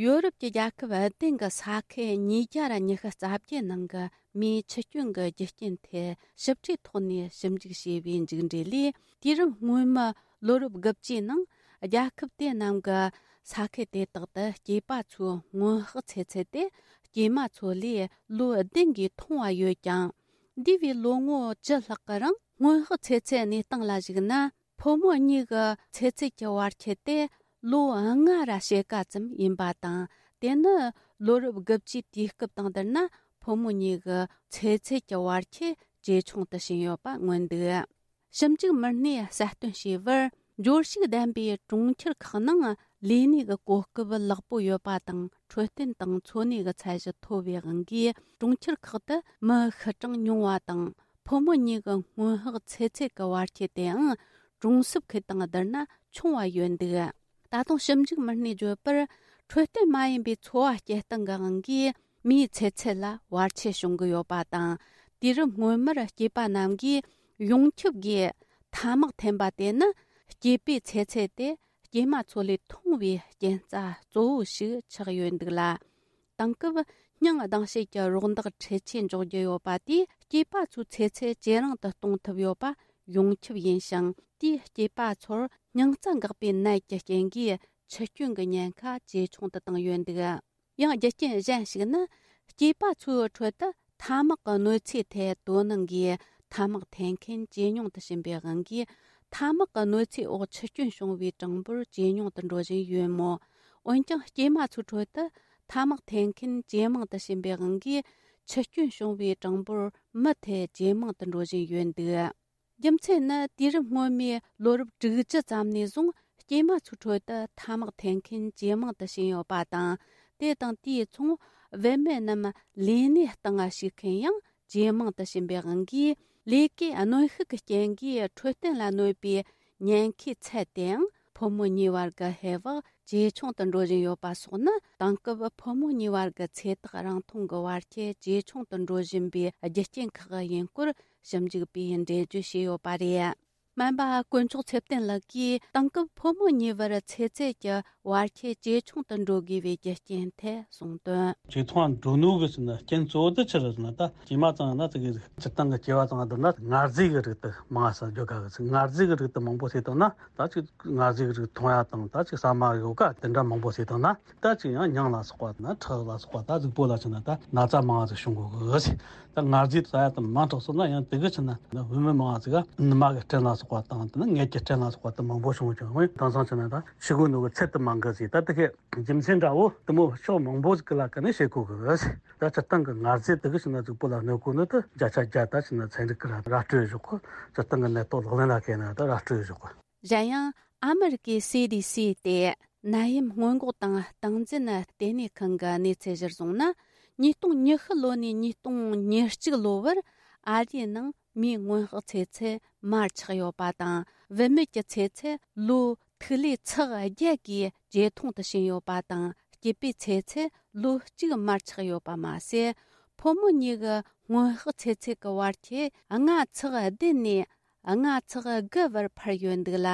ཡོ་རོབ་ཀྱི་རྒྱལ་ཁབ་བདུན་གྱི་ས་ཁུལ་ཉིས་བརྒྱ་ར་ཉི་ཤུ་རྩ་བརྒྱད་ནང་གི་མིའི་འཆི་སྐྱོན་གྱི་རྒྱུ་རྐྱེན་ཐད་ཞིབ་ཕྲའི་ཐོག་ནས་ཞིབ་འཇུག་བྱས་པའི་མཇུག་འབྲས་ལས། དུས་རབས་སྔོན་མའི་ལོ་རབས་དགུ་བཅུའི་ནང་རྒྱལ་ཁབ་དེ་རྣམས་ཀྱི་ས་ཁུལ་དེ་དག་ཏུ་སྐྱེས་པ་ཚོའི་སྔོན་དཔག་ཚེ་ཚད་དེ་སྐྱེས་མ་ཚོ་ལས་ལོ་བདུན་གྱིས་ཐུང་བ་ཡོད་ཀྱང་། འདས་པའི་ལོ་ངོ་བཅུ་ལྷག་གི་རིང་སྔོན་དཔག་ཚེ་ཚད་གནས་སྟངས་ལ་གཞིགས་ན། ཕོ་མོ་གཉིས་ཀྱི་ཚེ་ཚད་ཀྱི་བར་ཁྱད་དེ་ལོ་ལྔ་ར་ཕྱེད་ཀ་ཙམ་ཡིན་པ་དང་། དེ་ནི་ལོ་རབས་དགུ་བཅུའི་དུས་སྐབས་དང་བསྡུར་ན། ཕོ་མོ་གཉིས་ཀྱི་ཚེ་ཚད་ཀྱི་བར་ཁྱད་ ཇེ་ཆུང་དུ་ཕྱིན་ཡོད་པ་མངོན་འདུག། ཞིབ་འཇུག་མི་སྣས་གསལ་སྟོན་བྱས་པར། འབྱོར་ཕྱུག་ལྡན་པའི་གྲོང་ཁྱེར་ཁག་ནང་ལས་གནས་ཀྱི་གོ་སྐབས་ལེགས་པོ་ཡོད་པ་དང་འཕྲོད་བསྟེན་དང་འཚོ་གནས་ཀྱི་ཚད་གཞི་མཐོ་བའི་དབང་གིས། གྲོང་ཁྱེར་ཁག་ཏུ་མི་ཤི་གྲངས་ཉུང་བ་དང་། ཕོ་མོ་གཉིས་ཀྱི་སྔོན་དཔག་ཚེ་ཚད་ཀྱི་བར་ཁྱད་དེའང་གྲོང་གསེབ་ཁུལ་དང་བསྡུར་ན་ཆུང་བ་ཡོད་འདུག། ད་དུང་ཞིབ་འཇུག་མི་སྣས་བརྗོད་པར། འཕྲོད་བསྟེན་མ་ཡིན་པའི་འཚོ་བ་སྐྱེལ་སྟངས་ཀྱི་དབང་གིས། མིའི་ཚེ་ཚད་ལ་བར་ཆད་བྱུང་གི་ཡོད་པ་དང་། དུས་རབས་སྔོན་མར་སྐྱེས་པ་རྣམས་ཀྱིས་ཡོངས་ཁྱབ་ཀྱིས་ཐ་མག་འཐེན་པ་དེ་ནི། སྐྱེས་པའི་ཚེ་ཚད་དེ་སྐྱེས་མ་ཚོ་ལས་ཐུང་བའི་རྐྱེན་རྩ་གཙོ་བོ་ཞིག་ཆགས་ཡོད་འདུག་ལ། དེང་སྐབས་སྙིང་སྡང་བྱེད་ཀྱི་རོགས་འདེགས་འཕྲུལ་ཆས་འཇོག་རྒྱུ་ཡོད་པ་དེས། སྐྱེས་པ་ཚོའི་ཚེ་ཚད་ཇེ་རིང་དུ་གཏོང་ཐུབ་ཡོད་པ་ཡོངས་ཁྱབ་ཡིན་ཞིང་། དེས་སྐྱེས་པ་ཚོར་སྙིང་རྩ་འགག་པའི་ནད་ཀྱི་རྐྱེན་གྱིས་འཆི་སྐྱོན་གྱི་ཉེན་ཁ་ཇེ་ཆུང་དུ་བཏང་ཡོད་འདུག། ཡང་རྒྱུ་རྐྱེན་གཞན་ཞིག་ནི། སྐྱེས་པ་ཚོའི་ཁྲོད་དུ་ཐ་མག་གི་གནོད་འཚེའི་ཐད་དོ་སྣང་གིས། ཐ་མག་འཐེན་མཁན་ཇེ་ཉུང་དུ་ཕྱིན་པའི་དབང་གིས། ཐ་མག་གི་གནོད་འཚེའི་འོག་འཆི་སྐྱོན་བྱུང་བའི་གྲངས་འབོར་ཇེ་ཉུང་དུ་འགྲོ་བཞིན་ཡོད་མོད། འོན་ཀྱང་། སྐྱེས་མ་ཚོའི་ཁྲོད་དུ་ཐ་མག་འཐེན་མཁན་ཇེ་མང་དུ་ཕྱིན་པའི་དབང་གིས། འཆི་སྐྱོན་བྱུང་བའི་གྲངས་འབོར་མུ་མཐུད་ཇེ་མང་དུ་འགྲོ་བཞིན་ཡོད་འདུག། རྒྱུ་མཚན་ནི། དུས་རབས་སྔོན་མའི་ལོ་རབས་དྲུག་ཅུ་ཙམ་ནས་བཟུང་། སྐྱེས་མ་ཚོའི་ཁྲོད་དུ་ཐ་མག་འཐེན་མཁན་ཇེ་མང་དུ་ཕྱིན་ཡོད་པ་དང་། དེ་དང་དེའི་མཚུངས། བུད་མེད་རྣམས་ལས་གནས་སྟེང་ཞུགས་མཁན་ཡང་ཇེ་མང་དུ་ཕྱིན་པའི་དབང་གིས། ལས་ཀའི་གནོན་ཤུགས་ཀྱི་རྐྱེན་གྱིས་འཕྲོད་བསྟེན་ལ་གནོད་པའི་ཉེན་ཁའི་ཚད་དེའང་ཕོ་མོ་གཉིས་བར་གྱི་ཧེ་བག་ཇེ་ཆུང་དུ་འགྲོ་བཞིན་ཡོད་པ་སོགས་ནི། དེང་སྐབས་ཕོ་མོ་གཉིས་བར་གྱི་ཚེ་ཐག་རིང་ཐུང་གི་བར་ཁྱད་ཇེ་ཆུང་དུ་འགྲོ་བཞིན་པའི་རྒྱུ་རྐྱེན་ཁག་ཡིན་སྐོར། ཞིབ་འཇུག་པས་འགྲེལ་བརྗོད་བྱས་ཡོད་པ་རེད། སྨན་པ་དཀོན་མཆོག་ཚེ་བརྟན་ལགས་ཀྱིས། དེང་སྐབས་ཕོ་མོ་གཉིས་བར་ཚེ་ཚད་ཀྱི་བར་ཁྱད་ཇེ་ཆུང་དུ་འགྲོ་དགོས་པའི་རྒྱུ་རྐྱེན་ཐད་གསུངས་དོན། ཇེ་ཐུང་ང་འགྲོ་ནོ་གི་ཟེར་ན་རྐྱེན་གཙོ་བོ་དེ་ཆི་རེད་ཟེར་ན། ད་སྐྱེས་མ་ཚང་ན་དེ་གི་སྤྱིར་བཏང་གི་སྐྱེ་བ་ཚང་ན་བསྡུར་ན། མངར་ཟས་ཀྱི་རིགས་དེ་མང་ས་འཇོག་ག་གི་ཟེར། མངར་ཟས་ཀྱི་རིགས་དེ་མང་པོ་ཟས་བཏང་ན། ད་ཅིག་མངར་ཟས་ཀྱི་རིགས་འཐུང་ཡ་དང་། ད་ཅིག་ཟ་མ་ཡོ་ག་དེ་འདྲ་མང་པོ་ཟས་བཏང་ན། ད་ཅིག་ཡང་མྱང་ལ་སོགས་པ་དང་། ཁྲག་ལ་སོགས་པ། ད་གཟུགས་པོ་ལ་ཆི་ན་ད་ན་ཚ་མང་ང་ཟིག་བྱུང་གོ་གི་ཟེར། ད་མངར་ཟས་ཟ་ཡ་དེ་མང་དྲགས་སོང་ན། ཡང་དེ་གི་ཆི་ན་བུད་མེད་མང་ང་ཟིག་ག་ནུ་མ་གི་སྐྲན་ལ་སོགས་པ་དང་། དེ་ནི་མངལ་གྱི་སྐྲན་ལ་སོགས་པ་དེ་མང་པོ་བྱུང་བྱུང་། དེང་སང་ཆི་ན་ད་ཤི་གོ་ནོ་གི་ཚད་དེ་མང་གི་ཟེར། ད་དེ་གི་རྒྱུ་མཚན་འདྲ་བོ་དེ་མོ་ཕྱོགས་མང་པོ་ཟིག་གི་ལ་ཀ་ནས་བཤད་གོ་གི་ཟེར། ད་སྤྱིར་བཏང་གི་མངར་ཟས་དེ་གི་ཆི་ན་གཟུགས་པོ་ལ་གནོད་གོ་ནོ་དེ་བརྒྱ་ཆ་བརྒྱ་ད་ཆི་ན་ཚན་རིག་གི་ར་ར་སྤྲོད་བཞག་གོ། སྤྱིར་བཏང་གི་ནད་ཐོག་ལག་ལེན་ལ་བཀལ་ན་ད་ར་སྤྲོད་བཞག་གོ། གཞན་ཡང་། ཨ་མི་རི་ཀའི་སི་ཌི་སི་སྟེ། ནད་ཡམས་སྔོན་འགོག་དང་སྟངས་འཛིན་ལྟེ་གནས་ཁང་གི་གནས་ཚུལ་གཞིར་བཟུང་ན། ཉིས་སྟོང་ཉི་ཤུ་ལོ་ནས་ཉིས་སྟོང་ཉེར་གཅིག་ལོ་བར་ཨ་རིའི་ནང་མིའི་སྔོན་དཔག་ཚེ་ཚད་མར་ཆག་ཡོད་པ་དང་། བུད་མེད་ཀྱི་ཚེ་ཚད་ལོ་ཐིག་ལེ་ཚེག་བརྒྱད་ཀྱིས་ཇེ་ཐུང་དུ་ཕྱིན་ཡོད་པ་དང་། སྐྱེས་པའི་ཚེ་ཚད་ལོ་གཅིག་མར་ཆག་ཡོད་པ་མ་ཟད། ཕོ་མོ་གཉིས་ཀྱི་སྔོན་དཔག་ཚེ་ཚད་ཀྱི་བར་ཁྱད་ལྔ་ཚེག་བདུན་ནས་ལྔ་ཚེག་དགུ་བར་འཕར་ཡོད་འདུག་ལ།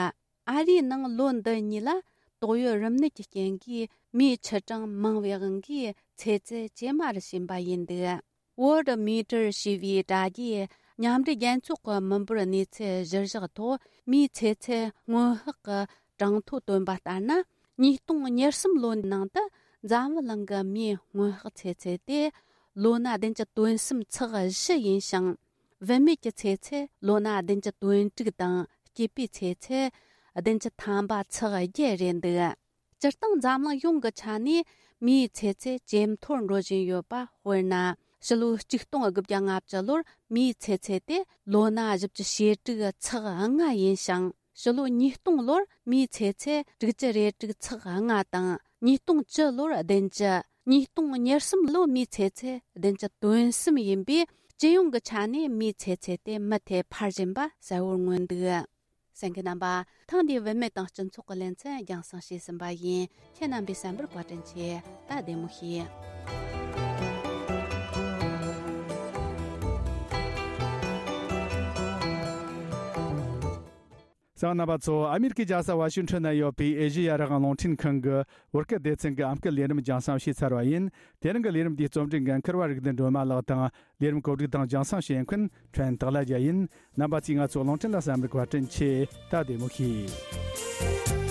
ཨ་རིའི་ནང་ལོ་འདི་གཉིས་ལ་ཏོག་དབྱིབས་རིམས་ནད་ཀྱི་རྐྱེན་གྱིས་མིའི་འཆི་གྲངས་མང་བའི་དབང་གིས་ཚེ་ཚད་ཇེ་དམའ་རུ་ཕྱིན་པ་ཡིན་འདུག། Worldometer ཞེས་པའི་དྲ་རྒྱའི་མཉམ་འབྲེལ་རྒྱལ་ཚོགས་ཀྱི་མི་འབོར་གནས་ཚུལ་གཞིར་བཞག་ཐོག། མིའི་ཚེ་ཚད་སྔོན་དཔག་གི་གྲངས་ཐོ་བཏོན་པ་ལྟར་ན། ཉིས་སྟོང་ཉེར་གསུམ་ལོའི་ནང་དུ་འཛམ་བུ་གླིང་གི་མིའི་སྔོན་དཔག་ཚེ་ཚད་དེ་ལོ་ན་བདུན་ཅུ་དོན་གསུམ་ཚེག་བཞི་ཡིན་ཞིང་། བུད་མེད་ཀྱི་ཚེ་ཚད་ལོ་ན་བདུན་ཅུ་དོན་དྲུག་དང་། སྐྱེས་པའི་ཚེ་ཚད་བདུན་ཅུ་ཐམ་པ་ཚེག་བརྒྱད་རེད་འདུག། སྤྱིར་བཏང་འཛམ་གླིང་ཡོངས་ཀྱི་ཆ་ནས་མིའི་ཚེ་ཚད་ཇེ་མཐོར་འགྲོ་བཞིན་ཡོད་པ། དཔེར་ན། ཕྱི་ལོ་ཆིག་སྟོང་དགུ་བརྒྱ་ལྔ་བཅུ་ལོར་མིའི་ཚེ་ཚད་དེ་ལོ་ན་བཞི་བཅུ་ཞེ་དྲུག་ཚེག་ལྔ་ཡིན་ཞིང་། ཕྱི་ལོ་ཉིས་སྟོང་ལོར་མིའི་ཚེ་ཚད་དྲུག་ཅུ་རེ་དྲུག་ཚེག་ལྔ་དང་། ཉིས་སྟོང་བཅུ་ལོར་བདུན་ཅུ། ཉིས་སྟོང་ཉེར་གསུམ་ལོ་མིའི་ཚེ་ཚད་བདུན་ཅུ་དོན་གསུམ་ཡིན་པས། སྤྱི་ཡོངས་ཀྱི་ཆ་ནས་མིའི་ཚེ་ཚད་དེ་མུ་མཐུད་འཕར་བཞིན་པ་གསལ་བོར་མངོན་འདུག། གསན་མཁན་རྣམ་པ། ཐེངས་འདིའི་བུད་མེད་དང་སྤྱི་ཚོགས་ཀྱི་ལེ་ཚན་རྒྱང་སྲིང་བྱས་ཟིན་པ་ཡིན། ཁྱེད་རྣམ་པས་གསན་པར་བཀའ་དྲིན་ཆེ། ད་བདེ་མོ་བྱོས། གསན་མཁན་རྣམ་པ་ཚོ། ཨ་མེ་རི་ཁའི་རྒྱལ་ས་ཝ་ཤིང་ཊོན་ན་ཡོད་པའི་ཨེ་ཤེ་ཡ་རང་དབང་རླུང་འཕྲིན་ཁང་གི་བོད་སྐད་སྡེ་ཚན་གྱི་ཨམ་སྐད་ལས་རིམ་རྒྱང་སྲིང་བྱས་ཚར་བ་ཡིན། དེ་རིང་གི་ལས་རིམ་འདིའི་རྩོམ་སྒྲིག་འགན་འཁུར་བ་རིག་ལྡན་སྒྲོལ་མ་ལགས་དང་། ལས་རིམ་གོ་སྒྲིག་དང་རྒྱང་སྲིང་བྱེད་མཁན་ཕྲན་སྟག་ལྷ་རྒྱལ་ཡིན། རྣམ་པ་ཚོས་ང་ཚོའི་རླུང་འཕྲིན་ལ་གསན་པར་བཀའ་དྲིན་ཆེ། ད་བདེ་མོ་བྱོས།